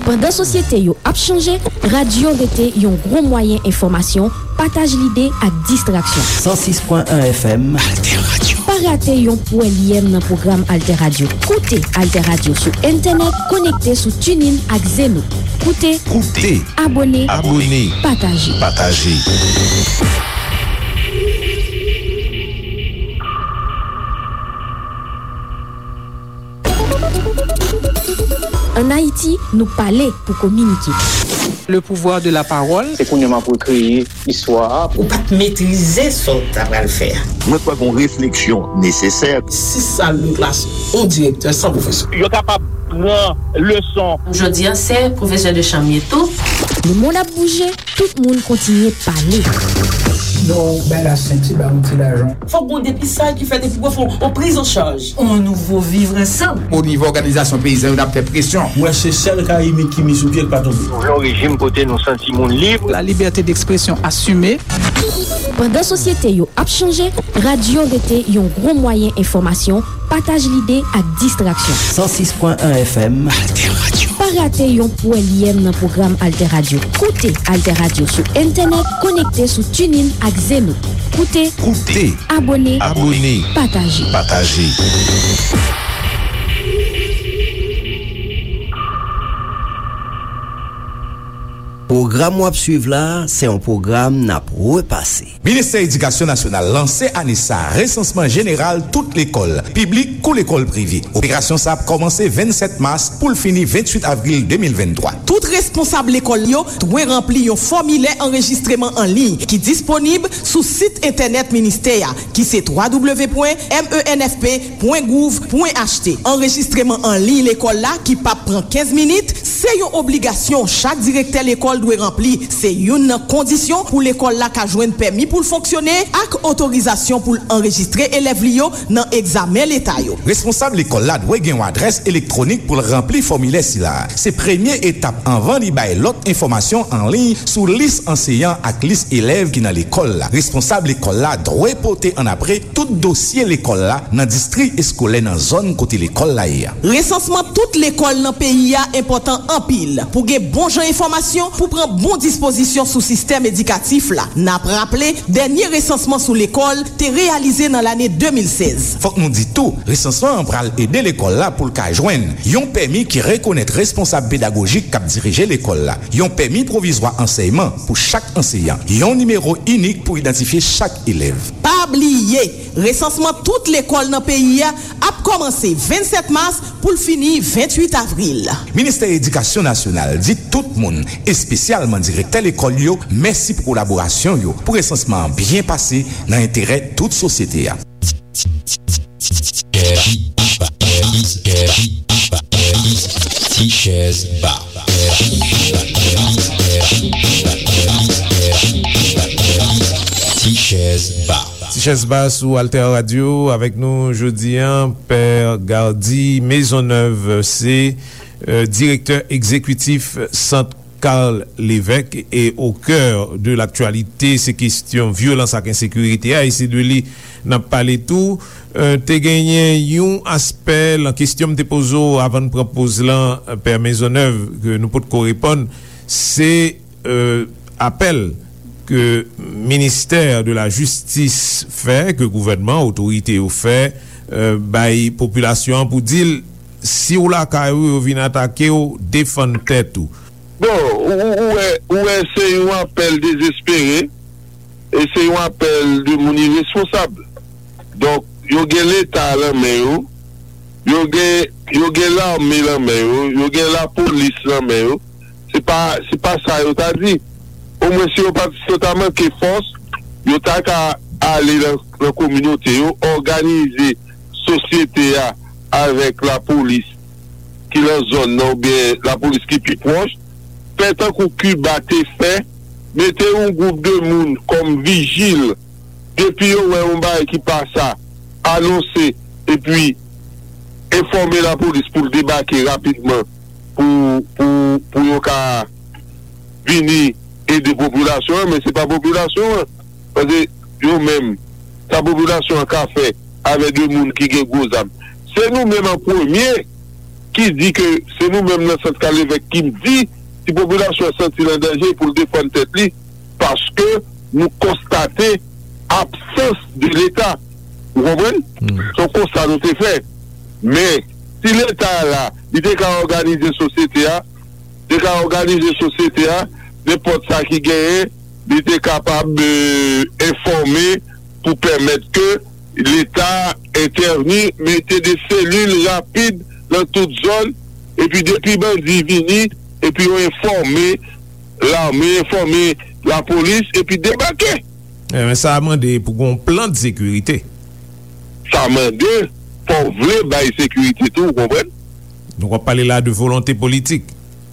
Pandan sosyete yo ap chanje, radyo rete yon gwo mwayen enfòmasyon, pataj lide ak distraksyon. San sis pwen en F M. Alter Radio. Pa rate yon pwèlyèm nan pwogram Alter Radio. Koute Alter Radio sou entènèt, konekte sou TuneIn ak Zeno. Koute, Koute. Abòne, Abòne. Pataje. Pataje. Ann Ayiti, nou pale pou kominike. Le pouvoir de la parole. Se kounye a m ap rekreye istwa a. Ou pa t metrize sa w ta pral fè a. Mwen kwè gen yon refleksyon nesesè. Sis sal de klas, yon direktè san pwofesè. Yo kapab pran leson. Jodi a, se pwofesè de chanm ye tou. Lemonn ap bouje, tout moun kontinye pale. Non, bay la senti, ba yon ti lajan. Fòk gon depistaj ki fèt epi pou fè yon priz an chaj. On nouvo vivre ensemble. O nivo òganizasyon peyizan yo, n ap fè presyon. Mwen se sèl Karayib ki mi sou pye k pa tonbe. Nou vle yon rejim kote nou santi moun lib. La liberté d'expression assumée. Pandan sosyete yo ap chanje, radyo rete yon gwo mwayen enfòmasyon, pataj lide ak distraksyon. San sis pwen en F M. Alter Radio. Pa rate yon pwèlyèm nan pwogram Alter Radio. Koute Alter Radio sou entènèt, konekte sou TuneIn ak Zeno. Koute, Koute. Abòne, Abòne. Pataje. Pataje. Pwogram w ap swiv la, se yon pwogram n ap repase. Ministè Edikasyon Nasyonal lanse ane sa a resansman jeneral tout lekòl, piblik kou lekòl prive. Operasyon sa a ap kòmanse vennsèt mas pou l fini venntuit avril de mil venntwa. Tout responsab lekòl yo dwe ranpli yon fòmilè anrejistreman an liy ki disponib sou sit entènèt ministè a, ki se twa w pwen M E N F P pwen gouv pwen H T. Anrejistreman an liy lekòl la, ki p ap pran kenz minit, se yon obligasyon chak direktè lekòl dwe ranpli. Se youn nan kondisyon pou lekòl la ka jwenn pèmi pou l fonksyone ak otorizasyon pou l anrejistre elèv li yo nan egzamen leta yo. Responsab lekòl la dwe gen yon adrès elektwonik pou l ranpli fòmilè sila a. Se premye etap anvan li bay lòt enfòmasyon an liy sou lis anseyan ak lis elèv ki nan lekòl la. Responsab lekòl la dwe pote annapre tout dosye lekòl la nan distri eskolè nan zòn kote lekòl la ye a. Resansman tout lekòl nan peyi a enpòtan anpil pou gen bon jan enfòmasyon, pou pran bon dispozisyon sou sistèm edikatif la. N ap raple, dènye resansman sou lekòl te reyalize nan lane de mil sèz. Fòk nou di tou, resansman an pral ede lekòl la pou l ka jwenn yon pèmi ki rekonèt responsab pedagojik k ap dirije lekòl la, yon pèmi pwovizwa ansèyman pou chak anseyan, yon nimewo inik pou idantifye chak elèv. Pa bliye, resansman tout lekòl nan peyi a ap kòmanse vennsèt mas pou l fini venntuit avril. Ministè Edikasyon Nasyonal di tout moun, espesyalman direktè lekòl yo, mèsi pou kolaborasyon yo pou resansman an byen pase nan enterè tout sosyete a. Ti chèz ba. Ti chèz ba. Ti chèz ba sou Alter Radio. Avèk nou jodi a, Pè Gardy Maisonneuve, se, euh, direktè egzekitif Sant Carl Lévesque. Et au cœur de l'actualité, se kesyon vyolans ak ensekirite a, e se de li n ap pale tou. Euh, te genyen yon aspè lan kesyon m te poze w avan n pran poz lan, euh, Pè Maisonneuve, ke nou potko reponn, se euh, apèl ke ministè de la jistis fè, ke gouvènman, otorite yo fè, euh, bay popilasyon an pou di l, si w lakay ou, yo vin atake w, defann tèt ou. Bon, ou, ou, ou wè, ou wè se yon apèl dezespere, e se yon apèl de moun iresponsab. Donk, yo gen Leta lan men yo, yo gen, yo gen lame lan men yo, yo gen lapolis lan men yo. Se pa, se pa sa yo ta di. Omwen si yo pa, si yo ta manke fòs, yo ta ka ale nan, nan kominote yo, òganize sosyete a avèk lapolis ki nan zòn nan oubyen lapolis ki pi pwòch, fè tankou Kiba te fè, mete yon gwoup de moun kòm vijil, depi yo wè yon bagay ki pa sa, anonse, epi enfòme lapolis pou l debake rapidman pou, pou, pou yo ka vini ede popilasyon an, men se pa popilasyon an. Paske yo menm, sa popilasyon an ka fè avè de moun ki gen gwo zam? Se nou menm an premye ki di ke se nou menm nan sant Kalevèk ki di si popilasyon an santi l an danje pou l defann tèt li, paske nou konstate absans de Leta. Ou konprann? Se yon konsta nou te fè. Men, si Leta a la, li te ka òganize sosyete a, te ka òganize sosyete a, nenpòt sa ki genyen, li te kapab, euh, enfòme pou pèmèt ke Leta entèvni, mete de selil rapid nan tout zòn, epi depi bandi vini, epi yo enfòme lame, enfòme lapolis, epi debake. Eh, men sa a mande pou gon plan de sekirite. Sa mande, fò w vle bay sekirite tou, ou konprann? Donk, w ap pale la de volonte politik.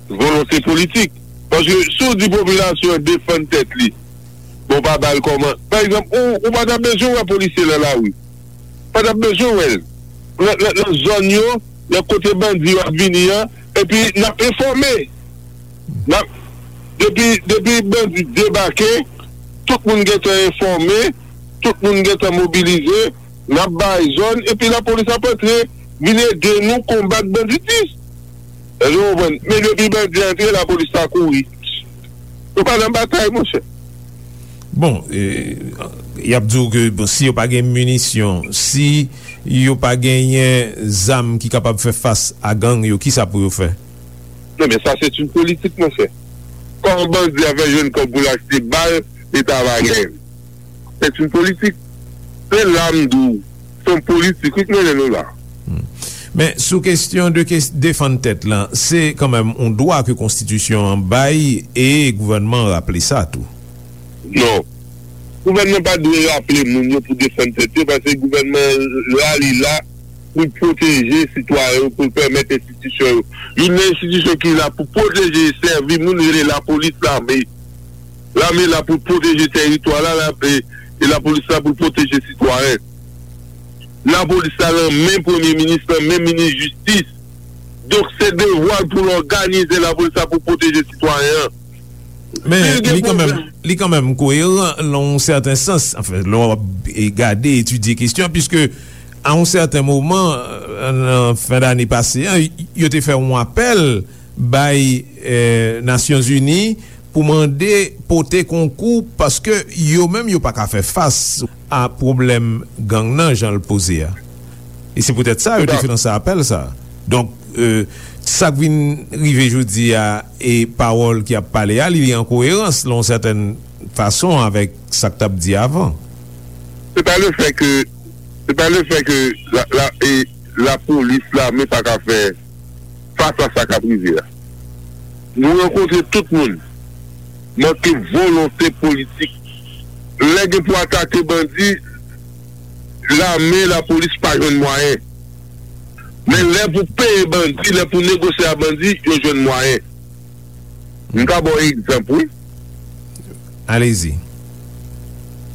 Volonte politik. Paske si w di popilasyon an defann tèt li, bon, pa ba l kòman. Pa egzanp, ou, ou pa t ap bezwen wè polisye nan lari. Pa t ap bezwen wè l. Nan, nan, nan zòn yo, nan kote bandi yo ap vini an, epi n ap enfòme. N ap, depi, depi bandi debake, tout moun gentan enfòme, tout moun gentan mobilize, n ap bay zòn, epi lapolis ap antre, vin ede nou konbat banditis. Èske w konprann? Men depi bandi antre, lapolis sa kouri. Nou pa nan batay, monchè. Bon, e, y ap di w ke, bon, si yo pa gen minisyon, si yo pa genyen zam ki kapab fè fas a gang yo, kisa pou yo fè? Non, men sa se yon politik, monchè. Kòman bandi a fè jwenn kòb pou l achte bal, Leta pa genyen? Se yon politik. Se la m di w, se yon politik, wi, k mennen nou la. Hmm. Men sou kesyon de kes-, defann tèt lan, se kanmenm yon dwa ke konstitisyon an bay e gouvènman an raple sa tou. Non. Gouvènman pa dwe raple moun yo pou defann tèt yo, paske gouvènman an la, li la pou l pwoteje sitwayen yo, pou l pèmèt enstitisyon yo. Youn nan enstitisyon ki la pou pwoteje e sèvi moun rele lapolis, lame. Lame la pou l pwoteje tèritwa la, la, e, e lapolis la pou l pwoteje sitwayen. Lapolis la nan men premye minis, nan men minis jistis. Donk, se devwa l pou l òganize lapolis la pou pwoteje sitwayen an. Men li kanmenm, li kanmenm koeran nan yon sèten sans. Anfen, lè w ap, e, gade, etidye kesyon an, piske a yon sèten moman, e, nan fen dane pase an, yo te fè yon apèl bay, e, Nasyonzini pou mande pote konkou paske yo menm yo pa ka fè fas a pwoblèm gang nan jan l poze a. E se poutèt sa yo te fè lanse apèl sa. Donk, e, sa k vin rive jodi a e pawòl ki ap pale a, li, li an koerans, nan yon sètèn fason, avèk sa k t ap di avan. Se pa le fè ke, se pa le fè ke la, la, e, lapolis, lame pa ka fè fas a sa k ap rive a. Nou rankontre tout moun. Manke volonte politik. Lè gen pou atake bandi, lame, lapolis pa jwenn mwayen. Men lè pou peye bandi, lè pou negosye a bandi, yo jwenn mwayen. M ka ba w egzanp, wi. Alezi.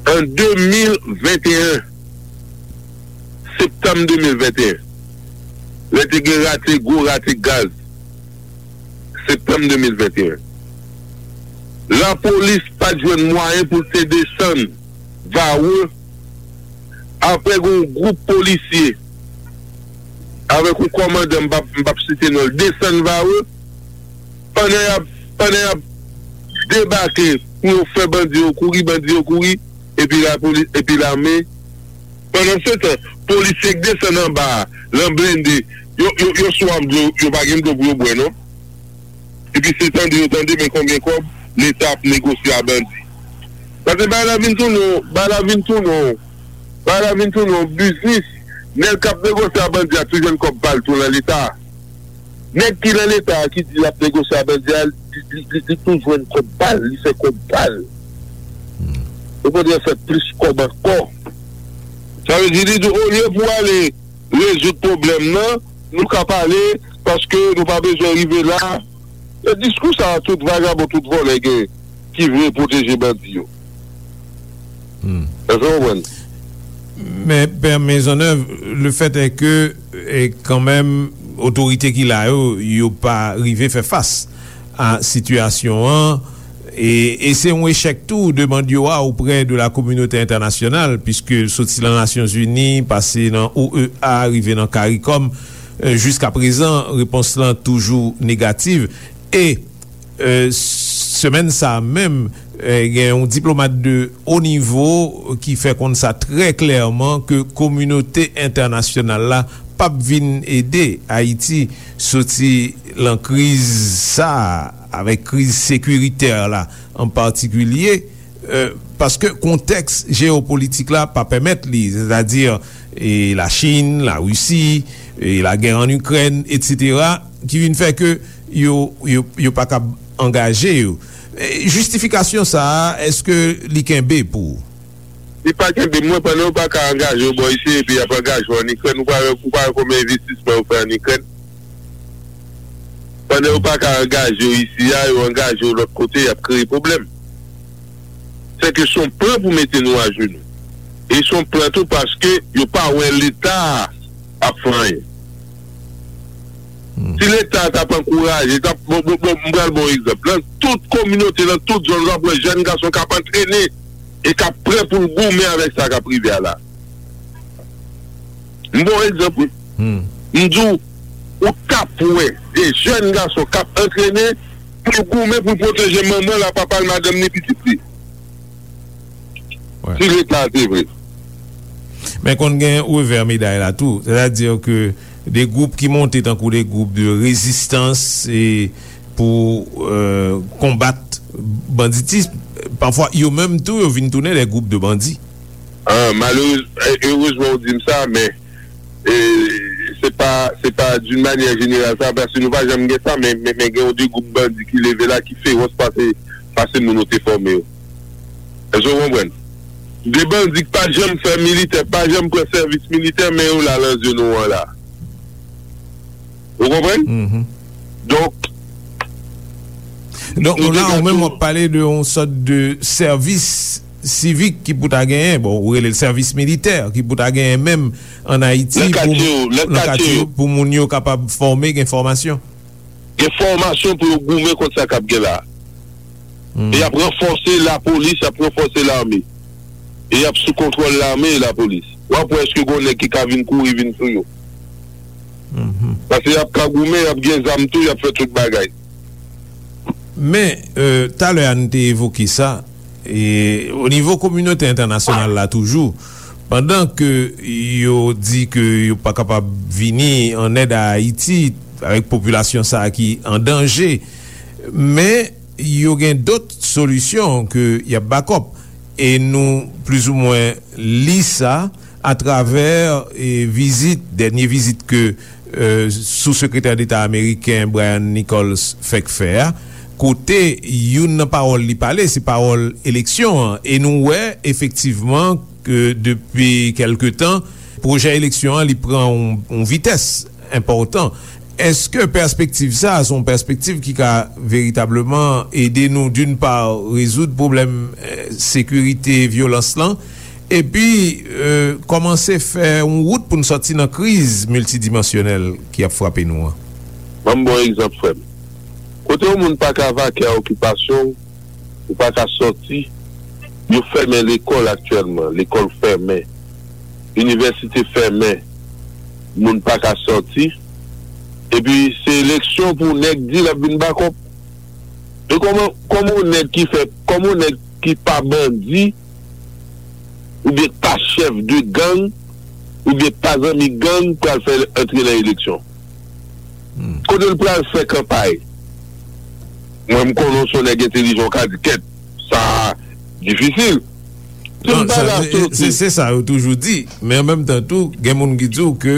An de mil venteyen, septanm de mil venteyen, lè te gen rate, gwo rate gaz, septanm de mil venteyen, lapolis pa t jwenn mwayen pou l te desann Varreux, apre gen yon gwoup polisye avèk yon kòmandan, m p ap, m p ap site non l, desann Varreux, pandan y ap, pandan y ap debake pou yo fè bandi yo kouri, bandi yo kouri, epi lapolis, epi lame. Pandansetan, polisye k desann anba a, lan blende, yo, yo, yo swaf dlo, yo pa gen dlo pou yo bwè, non. Epi se tande yo tande, men konbyen kòb Leta ap negosye a bandi. Paske bagay la vin tounen, bagay la vin tounen, bagay la vin tounen yon biznis. Nèg k ap negosye a bandi a tou jwenn kòb pa l tou lan Leta. Nèg ki lan Leta a ki di l ap negosye a bandi a, li, li, li, li tou jwenn kòb pa l, li fè kòb pa l. Okontrè, fè plis kòb ankò. Sa vle di, li di, olye pou ale rezoud pwoblèm nan, nou ka pale, paske nou pa bezwen rive la. E diskou sa a, tout vagabon, tout vòlè gen, ki vle pwoteje bandi yo. Èske w konprann? Men, Pè Maisonneuve, le fait est que, e, kanmenm, otorite ki la yo, yo pa rive fè fas a sitiyasyon an, e, e se yon echèk tou demann yo a auprès de la communauté internationale, puisque soti nan Nasyonzini, pase nan O E A, rive nan CARICOM, e, jiskaprezan, repons lan toujou negativ. E, e, semèn sa a menm, e, gen yon diplomat de o nivo ki fè konn sa trè klèman ke kominote entènasyonal la p ap vin ede Ayiti soti lan kriz sa a, avèk kriz sekiritè la an patikilye, e, paske kontèks jeyopolitik la pa pèmèt li, sètadi, e, Lachin, Larisi, e, lagè ann Ikrèn, etsetera, ki vin fè ke yo, yo, yo pa kab angaje yo. E, jistifikasyon sa a, èske li kenbe pou ou? Li pa kenbe mwen, pandan yo pa ka angaje yo bò isi, epi y ap angaje yo ann Ikrèn, ou pa wè, ou pa wè konbyen envestisman yo fè ann Ikrèn? Pandan yo pa ka angaje yo isi a, yo angaje yo lòt kote, y ap kreye pwoblèm. Sèke s on plan pou mete nou ajenou. E s on plan tou paske yo pa wè Leta a ap fè anyen. Si Leta a t ap ankouraje, t ap, bon, bon, bon, m pral ba w egzanp. Nan tout kominote, nan tout zòn, w ap wè jèn gason k ap antrene e k ap prè pou l goumen avèk sa k ap rive a la. M ba w egzanp, wi. M di w, ou t ap wè de jèn gason k ap antrene pou l goumen, pou l pwoteje manman l, papa l, madanm li, pitit li. Si Leta a te vre. Men konn gen revè meday la tou. Sètadi ke de gwoup ki monte tankou de gwoup de rezistans e pou, e, konbat banditis, pafwa yo menm tou yo vin tounen de gwoup de bandi. Ah, malerez, e, erezman ou di m sa, men, e, se pa, se pa d'une manière générale sa, paske nou pa janm gen sa, men, men, men gen yon de gwoup bandi ki leve la, ki fewòs pase, pase moun ou te fòme yo. Èske w konprann? De bandi k pa janm fè militè, pa janm pran sèvis militè, men yo la nan zòn ou an la. Ou konprann? Donk, Donk, la, ou menm w ap pale de yon sòt de sèvis sivik ki pou ta genyen, bon, ou rele l sèvis militè, ki pou ta genyen menm ann Ayiti pou, nan katye yo, pou moun yo kapab fòme, gen fòmasyon. Gen fòmasyon pou yo goumen kont sa k ap gen la. E y ap ranfòse lapolis, y ap ranfòse lame. E y ap sou kontwòl lame e lapolis. W ap wè èske gen yon nèg ki ka vin kouri vin sou yo. Paske y ap ka goumen, y ap gen zam tou, y ap fè tout bagay. Men, e, talè a n te evoke sa, e, o nivo kominote entènasyonal la toujou, pandan ke yo di ke yo pa kapab vini an èd a Ayiti avèk popilasyon sa a ki an danje, men yo gen dòt solisyon ke y ap bakòp. E nou plizoumwen li sa atravè, e, vizit, dènye vizit ke, e, Sou-Sekretè Deta ameriken Brian Nichols fèk fè a, kote youn nan pawòl li pale, se pawòl eleksyon an. E nou wè, efektivman, ke depi kèlke tan, pwojè eleksyon an, li pran yon, yon vitès enpòtan. Èske pèspektiv sa a se yon pèspektiv ki ka veritableman ede nou, d'une part, rezoud pwoblèm, e, sekirite, vyolans lan, epi, e, kòmanse fè yon wout pou n sòti nan kriz miltidimansyonèl ki ap frape nou an? Ban m ba w egzanp, frè m. Kote yon moun pa ka vake a okipasyon w, ou pa ka sòti. Yo fèmen lekòl aktyèlman, lekòl fèmen, inivèsite fèmen, moun pa ka sòti. Epi se eleksyon pou nèg di l ap vin bakòp. E kòman, kòman yon nèg ki fè, kòman yon nèg ki pa bandi, oubyen k pa chèf de gang, oubyen k pa zanmi gang pral fè antre nan eleksyon? Kote l pral fè kanpay? Mwen, m konnen w se yon nèg entelijan, w ka di, kèt, sa difisil. Se sa yo toujou di, men an menm tan tou, gen moun ki di w ke,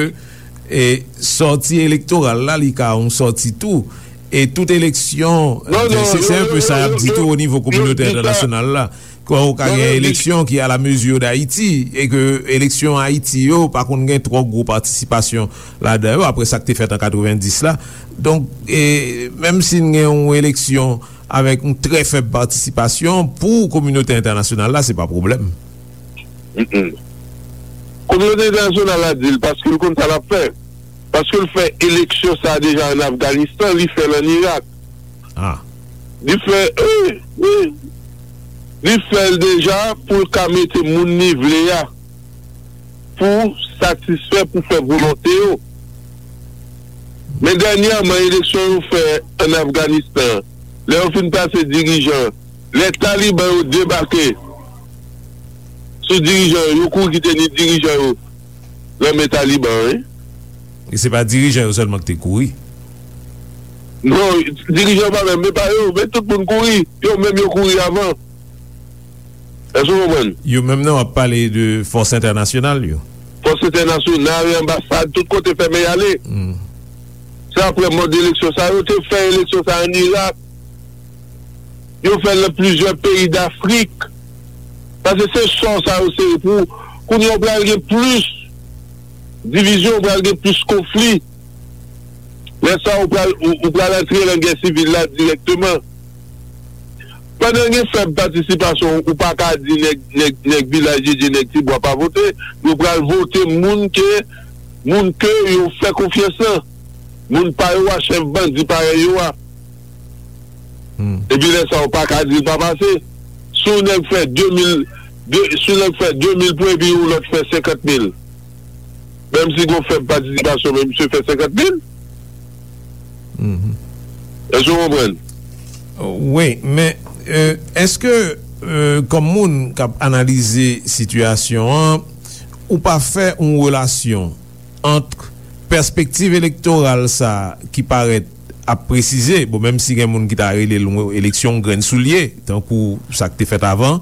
e, sòti elektoral la, li ka yon sòti tou. E tout eleksyon, se, se un peu sa y ap di tou o nivo kominote entènasyonal la. Ke w ka gen eleksyon ki à la mesure d'Haïti, e ke eleksyon Ayiti yo pa konn gen twò gwo patisipasyon ladan yo, apre sa k te fèt an katrevenndis la. Donk, e, menm si n gen yon eleksyon avèk yon trè fèb patisipasyon pou kominote entènasyonal la, se pa pwoblèm. Kominote entènasyonal la di l paske l konn sa l ap fè. Paske l fè eleksyon sa a deja ann Afganistan, li fè l ann Irak. Li fè, wi, wi. Li fè l deja pou l ka mete moun li vle a pou satisfè, pou fè volonte yo. Men dènyèman, eleksyon yo fè ann Afganistan, lè yo fin plase dirijan, lè Taliban yo debake sou dirijan yo, yo kouri kite ni dirijan yo nan men Taliban, wi. E se pa dirijan yo sèlman ki te kouri. Non, dirijan yo pa menm, men pa yo, men tout moun kouri. Yo menm yo kouri avan. Èske w konprann? Yo menm nan w ap pale de fòs entènasyonal yo. Fòs entènasyonal, anbasad, tout kote fèmen y ale. Se apre mòd eleksyon sa a, yo te fè eleksyon sa a ann Irak. Yo fè l nan plizyè peyi Dafrik. Paske se sò sa yo sere pou, kounye a w pral gen plis divizyon, w pral gen plis konfli. Lè sa a, ou pral, ou, ou pral antre nan gè sivil la dirèkteman. Pandan gen fèb patisipasyon, ou pa ka di nèg, nèg, nèg Vilaj Djedye, nèg Tibwa pa vote. Yo pral vote moun ke, moun ke yo fè konfyans lan. Moun pa yo a, chèf bandi parèy yo a. Epi lè sa a, ou pa ka di l pa pase. Si yon nèg fè de mil, de, si yon nèg fè de mil pwen epi yon lòt fè senkant mil, menm si gen yon fèb patisipasyon, men misye fè senkant mil. Èske w konprann? Wi, men, èske, kòm moun k ap analize sitiyasyon an, ou pa fè yon relasyon ant pèspektiv elektoral sa a ki parèt ap presize, bon, menm si gen moun ki ta rele l yon eleksyon grenn soulye, tankou sa k te fèt avan,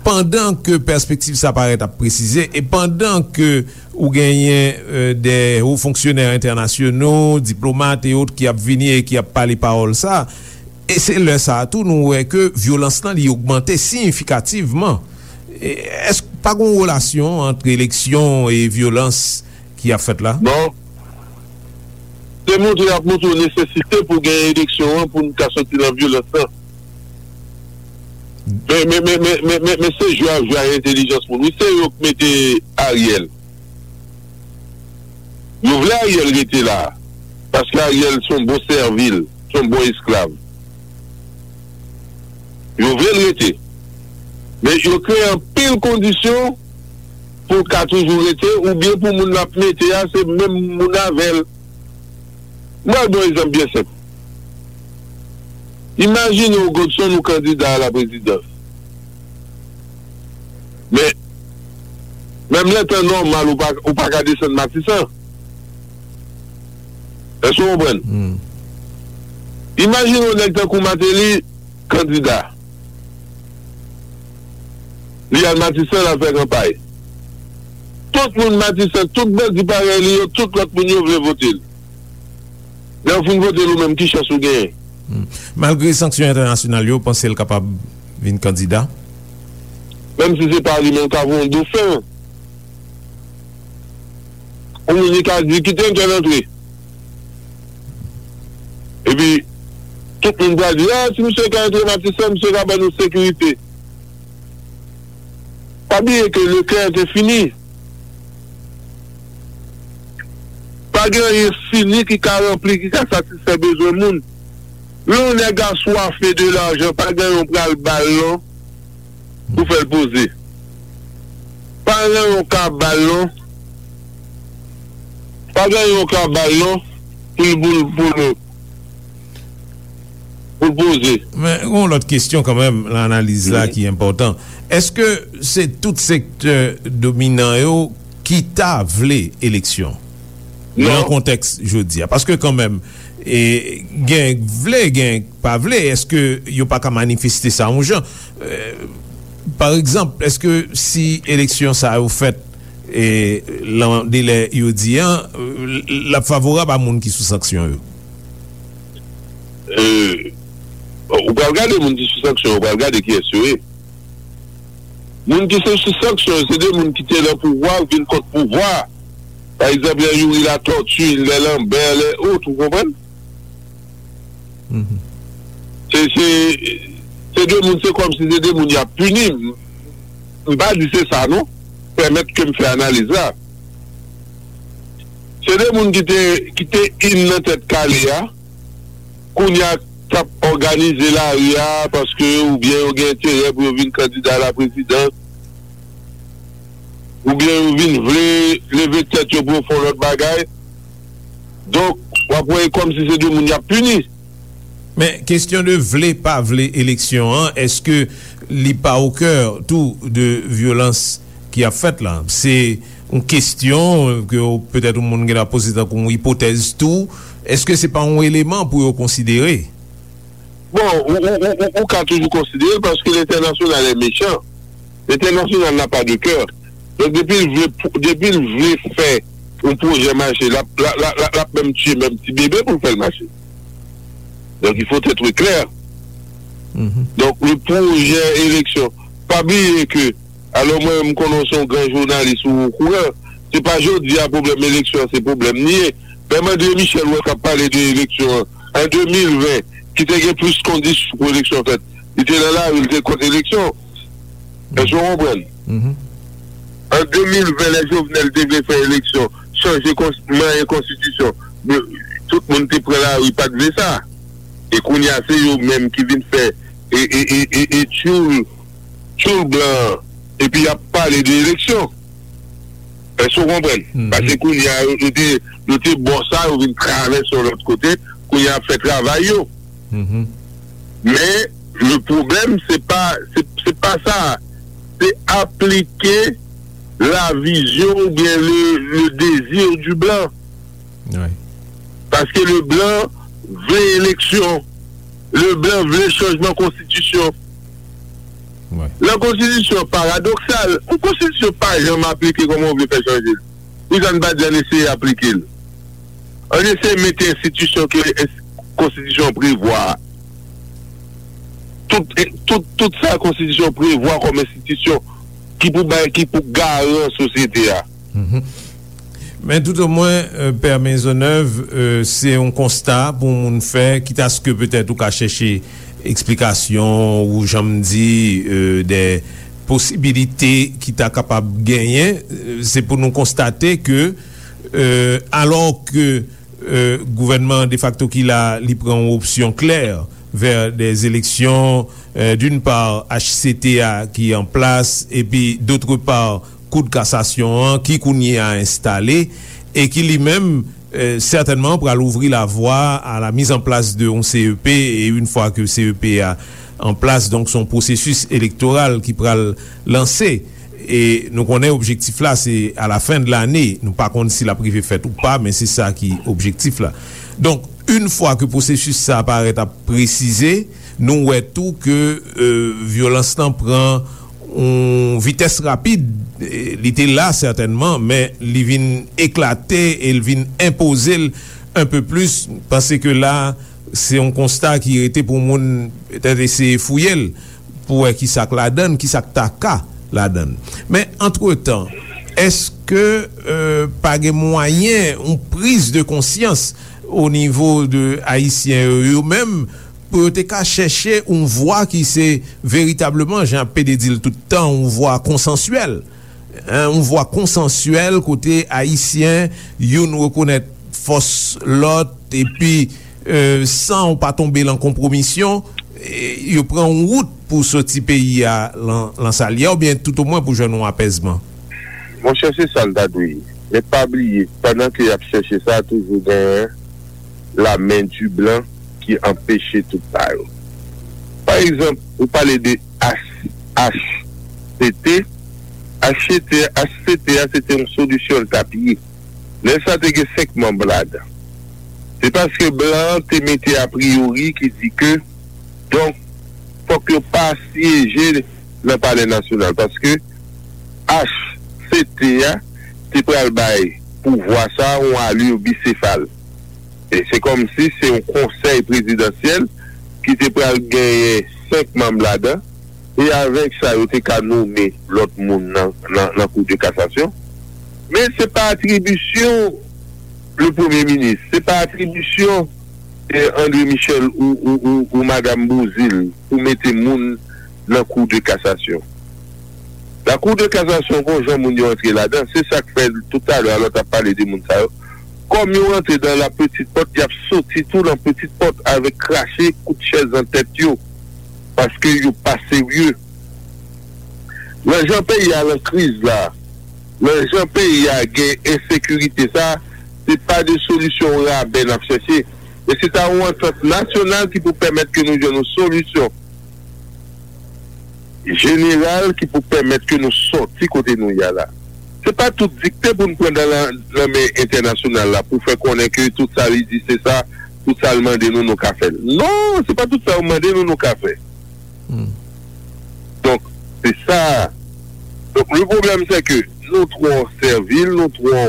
pandan ke pèspektiv sa parèt ap presize, e pandan ke ou genyen, euh, de wo fonksyonè entènasyonal, diplomat e ot ki ap vini e ki ap pale pawòl sa, e se lè sa a tou nou wè ke vyolans lan li ogmante siyifikativman. E, èske pa gen yon relasyon ant eleksyon e vyolans ki ap fèt la? Non. Se montre y ap montre w nesesite pou gen eleksyon an pou n ka soti nan vyolans lan. Men, men, men, men, men, men, men se jwe y ap jwe ak entèlijans moun. Wi, se yo k mete Ariel. Yo vle Ariel rete la. Paske Ariel se yon bon sèvil, se yon bon esklav. Yo vle l rete. Men yo kreye anpil kondisyon pou l ka toujou rete, oubyen pou moun l ap mete a, se menm moun avè l. Mwen ba w yon egzanp byen senp. Imajine w, Godson, ou kandida a la prezidans. Men, menm lè tan nòmal, ou pa, ou pa ka desann Matisan. Èske w konprann? Imajine w nèg tankou Martelly, kandida. Li al Matisan, l al fè kanpay. Tout moun Matisan, tout bandi parèy li yo, tout lòt moun yo vle vote l. Lè w fin vote l ou menm, ki chans ou genyen? Malgre sanksyon entènasyonal yo, w panse l kapab vin kandida? Menm si se pa li, men l ka voye yon dofen. Ou menm li ka di, "Kite entèl antre." Epi, tout moun pral di, "Ah, si misye ka antre Matisan, misye ka ban nou sekirite." Pa bliye ke Leclerc te fini. Pa gen anyen fini ki ka ranpli, ki ka satisfè bezwen moun. Lè yon nèg aswafe de lajan, pa gen yon pral ba l non. Pou fè l poze. Pa gen yon ka ba l non. Pa gen yon ka ba l non. Pou l, pou l, pou l, pou l poze. Men, gen yon lòt kesyon kanmenm nan analiz la ki enpòtan. Èske se tout sektè dominan yo ki ta vle eleksyon nan kontèks jodi a? Paske kanmenm, e, gen k vle, gen k pa vle. Èske yo pa ka manifeste sa yon jan? E, pa egzanp, èske si eleksyon sa yo fèt, e, lan delè yo di an, l ap favorab a moun ki sou sanksyon yo? euh, ou pral gade moun ki sou sanksyon, ou pral gade kiyès yo ye. Moun ki se sou sanksyon, se de moun ki te nan pouvwa, vin kont pouvwa. Pa egzanp, lè Youri Latortue, lè Lambert, lè autres, ou konprann? Se, se, se de moun, se kòmsi se de moun y ap pini. M, m pa di se sa, non. Pèmèt ke m fè analiz la. Se de moun ki te, ki te in nan tèt kale a, kounye a k ap òganize lari a, paske oubyen yo gen enterè pou yo vin kandida laprezidans, oubyen yo vin vle leve tèt yo pou yo fè yon lòt bagay. Donk, w ap wè e kòmsi se de moun y ap pini. Men, kesyon de vle pa vle eleksyon an, èske li pa o kè tou de vyolans ki ap fèt la? Se yon kesyon ke w, petèt yon moun gen dwa poze tankou yon ipotèz tou. Èske se pa yon eleman pou yo konsidere? Bon, ou, ou, ou, ou, ou ka toujou konsidere l paske lentènasyonal è mechan. Lentènasyonal n'a pas de cœur. Donk, depi l vle, depi l vle fè yon pwojè mache, l ap, l ap, l ap, l ap, l ap menm tiye menm ti bebe pou l fè l mache. Donc, il faut être clair. Donk, le pwojè eleksyon, pa bliye ke, alò mwen, m konnen w se yon gran jounalis ou okouran, se pa jodi a pwoblèm eleksyon an, se pwoblèm li ye. Menm André Michel, ou wè k ap pale de eleksyon an, an de mil ven, ki te gen plis kondisyon pou eleksyon fèt, li te nan lari, li te kont eleksyon. Èske w konprann? An de mil ven, lè Jovenel te vle fè eleksyon, chanje kons-, manyen konstitisyon, men tout moun te pran lari, pa t vle sa. E kounye a, se yo menm ki vin fè e, e, e, e, e tchoul, tchoul blan an, epi y ap pale de eleksyon. Èske w konprann? Paske kounye a, yo, yo te, yo te bò sa, yo vin travèse yon lòt kote, kounye a ap fè travay yo. Men, le pwoblèm, se pa, se, se pa sa. Se aplike la vizyon oubyen le, le désir du blanc. Paske le blan vle eleksyon. Le blan vle chanjman konstitisyon. Lè konstitisyon paradoksal, yon konstitisyon pa janm aplike kòman w vle fè chanje l. Poukisa n pa di ann eseye aplike l? Ann eseye mete enstitisyon ke ens-, konstitisyon an prevwa a. Tout, tout, tout sa konstitisyon an prevwa kòm enstitisyon ki pou bay, ki pou garan sosyete a. Men toutomwen, euh, Pè Maisonneuve, euh, se yon konsta pou moun fè, kitaske petèt ou ka chèche eksplikasyon ou, jan m di, euh, de posibilite ki ta kapab genyen, euh, se pou nou konstate ke, euh, alò ke, euh, gouvènman defakto ki la, li pran yon opsyon klè vè des élections, euh, d'une part, H C T A ki an plas, epi, d'autre part, Kou de kasasyon an ki kounye a enstale e ki li menm, euh, sètènman pral ouvri lavwa a la mise en place de yon C E P, e une fois que C E P a an plas, donk se yon pwosesis elektoral ki pral lanse. E nou konnen objektif la se a la fen de lane, nou pa konn si l ap rive fèt ou pa, men se sa ki objektif la. Donk, une fois que pwosesis sa parèt ap presize, nou wè tou ke, euh, vyolans lan pran yon vitès rapid. E, li te la sètènman, men li vin eklate e l vin enpoze l un peu plus. M panse ke la, se yon konsta ki rete pou moun petèt eseye fouye l pou wè kisa k ladan l, kisa k ta ka ladan l. Men, antretan, èske, euh, pa gen mwayen yon priz de konsyans o nivo de Ayisyen yo, yo menm, pou yo te ka chèche yon vwa ki se veritableman, jan P D di l tout tan, yon vwa konsansyèl. Hein, yon vwa konsansyèl kote Ayisyen youn rekonèt fòs lòt, epi, euh, san w pa tonbe lan konpwomisyon, e, yo pran yon wout pou soti peyi a lan, lan sa l ye a, oubyen toutomwen pou jwenn yon apèzman. Monchè, se sa l ta dwe ye. Men pa bliye, pandan ke y ap chèche sa, toujou genyen la main du blanc ki anpeche tout sa yo. Pa egzanp, ou pale de H-, H C T. H C T, H C T a, se te yon solisyon l t ap ye. Lè sa te gen senk manm ladan. Se paske blan an te mete a priyori ki di ke, donk, fòk yo pa syeje nan Palè Nasyonal, paske H C T a te pral bay pouvwa sa a yon alè bisefal. E se kòmsi se yon konsèy prezidansyèl ki te pral genyen senk manm ladan, e avèk sa, yo te ka nonmen lòt moun nan, nan, nan Kou de Kasasyon. Men se pa atribisyon le premye minis, se pa atribisyon eh, André Michel ou, ou, ou, ou Madam Bouzil pou mete moun nan Kou de Kasasyon. La Cour de Cassation, gon jan moun yo antre ladan, se sa k fè toutalè a lè w t ap pale de moun sa yo. Kòm yo rantre dans la petite porte, y ap soti tou nan petite porte avèk krache kout chèz nan tèt yo, paske yo pa serye. Nan jan peyi a nan kriz la, nan jan peyi a gen ensekirite sa, se pa de solisyon rabè n ap chèche, men se ta yon antant nasyonal ki pou pèmèt ke nou jwenn yon solisyon jeneral ki pou pèmèt ke nou sòti kote nou ye a la. Se pa tout dikte pou n pran nan, nan men entènasyonal la pou fè konnen ke tout sa li di se sa, tout sa l mande nou, nou ka fè l. Non, se pa tout sa yo mande nou, nou ka fè. Donk, se sa. Donk, le pwoblèm, se ke nou twò sèvil, nou twò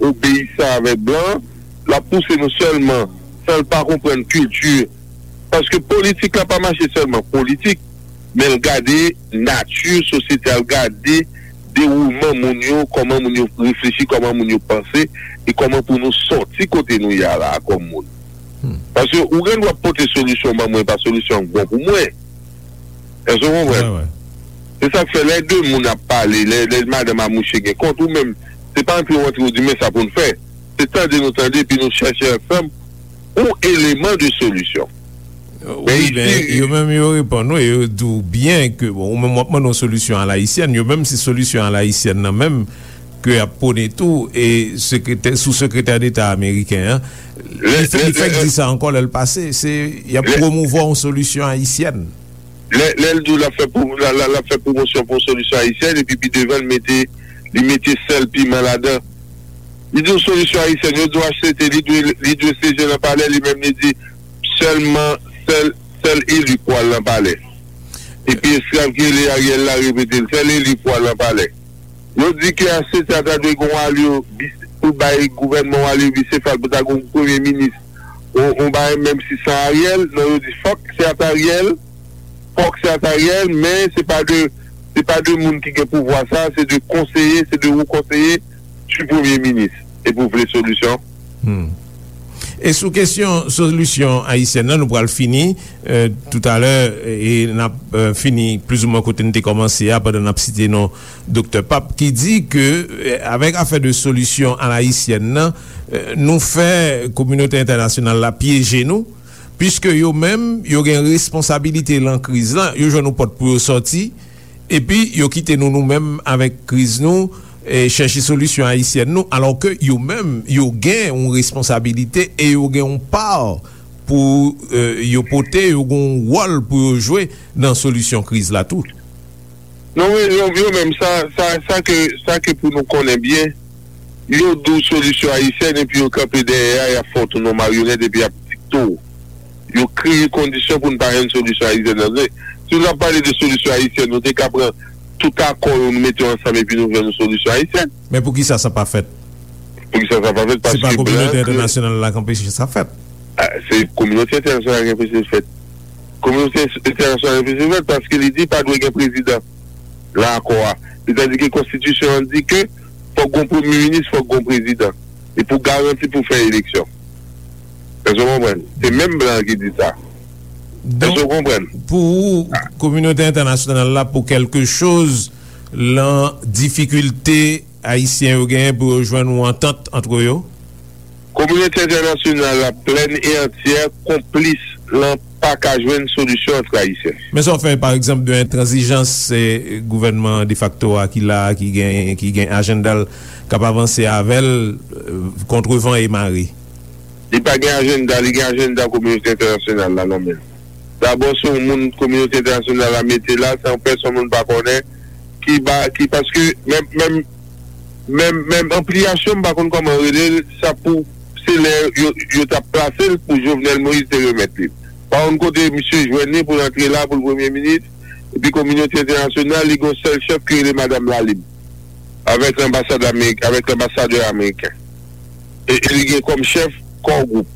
obeyisan avèk blan, l ap pouse nou sèlman, san l pa konprann kilti. Paske politik la pa mache sèlman politik, men l gade nati sosyete a, l gade dewoulman moun yo, kòman moun yo reflechi, kòman moun yo panse, e kòman pou nou sòti kote nou ye a la a kòm moun. Paske ou gen dwa pote solisyon ban mwen, pa solisyon an k bon pou mwen. Èske w konprann? Se sa k fè lè de moun ap pale, lè, lè madanm a mouche gen kont, ou menm, se pa antre w antre w di, men sa pou n fè. Se tande nou tande, epi nou chèche ansanm yon eleman de solisyon. Men wi, men isi, yo menm yo reponn ou, e yo di w byen ke, bon, ou menm w ap mande yon solisyon alayisyèn, yo menm se solisyon alayisyèn nan menm ke y ap pwone tou, e sekretè, sou sekretè deta ameriken an, li fè, li fèk di sa ankò lè l pase, se, y ap pwomouvwa yon solisyon ayisyèn. Lè, lè l di w l ap fè pwo-, l, l, l ap fè pwomosyon pou yon solisyon ayisyèn, epi pi devan l mete, li mete sèl piman ladan. Li di w solisyon ayisyèn, yo di w H C T, li dwe, li dwe seje nan palè, li menm li di sèlman, sèl, sèl eli k pral nan palè. Epi esklav ki rele Ariel la repete l, sèl eli k pral nan palè. Yo di ke H C T a ta dwe gen yon alye bis-, pou bay gouvènman yon alye bisefal, pou ta gen yon premye minis, yon, yon bagay menm si san Ariel, non, yo di fòk se ata Ariel, fòk se ata Ariel, men se pa de, se pa de moun ki gen pouvwa sa, se de konseye, se de wo konseye du premye minis. E pou vle solisyon? E sou kesyon solisyon ayisyèn nan, nou pral fini, eh, toutalè, e n ap, eh, fini plizoumwen kote n te kòmanse a, pandan n ap site non Doktè Pape, ki di ke, eh, avèk afè de solisyon alayisyèn nan, eh, nou fè kominote entènasyonal la pyeje nou, piske yo menm, yo gen responsabilite lan kriz lan, yo jwenn yon pòt pou yo sòti, epi yo kite nou, nou menm, avèk kriz nou, e chèche solisyon ayisyèn nou, alò ke yo menm, yo gen yon responsabilite e yo gen yon pa pou, eh, yo pote, yo gen yon wòl pou yo jwe nan solisyon kriz la tou. Non, men yo, yo menm, sa, sa, sa ke, sa ke pou nou konnen byen, yo di w solisyon ayisyèn epi yo kanpe dèyè a, y ap fè w tounen yon maryonèt epi y ap dikte w. Yo kreye kondisyon pou n pa jwenn solisyon ayisyèn nan. Si nou t ap pale de solisyon ayisyèn, nou te ka pran tout akò yo, nou mete yo ansanm epi nou jwenn yon solisyon ayisyèn. Men poukisa sa pa fèt? Poukisa sa pa fèt? Se pa kominote entènasyonal la k anpeche sa fèt. Ah, se kominote entènasyonal ki anpeche l fèt. Kominote entènasyonal ki anpeche l fèt paske li di pa dwe gen prezidan nan akò a. Sètadi ke konstitisyon an di ke fòk gon premye minis, fòk gon prezidan. E pou garanti pou fè eleksyon. Èske w konprann? Se menm blan an ki di sa. Èske w konprann? Donk, pou ou, kominote entènasyonal la, pou kèlke choz, lan difikilte ayisyen yo genyen pou yo jwenn yon antant antre yo? Kominote entènasyonal la, plèn e antyè, konplis lan pa ka jwenn solisyon antre ayisyen. Men sa w fè, pa egzanp, de entranzijans, se gouvènman defakto a ki la a, ki gen, ki gen ajanda l, k ap avanse avè l, eh, kont van e mare? Li pa gen ajanda, li gen ajanda kominote entènasyonal la nan men l. Dabò, se yon moun kominote entènasyonal la mete la, se yon pèsonn moun pa konnen, ki ba, ki, paske menm, menm, menm, menm anpliyasyon, m pa konn kòman rele l, sa pou, se lè yo, yo t ap plase l pou Jovenel Moïse te remèt li. Pa konn kote misye jwenn li pou l antre la, pou l premye minis, epi kominote entènasyonal, li gen yon sèl chèf ki rele Madanm Lalib, avèk lanbasad amerik-, avèk lanbasadè ameriken. E, e li gen kòm chèf Core Group.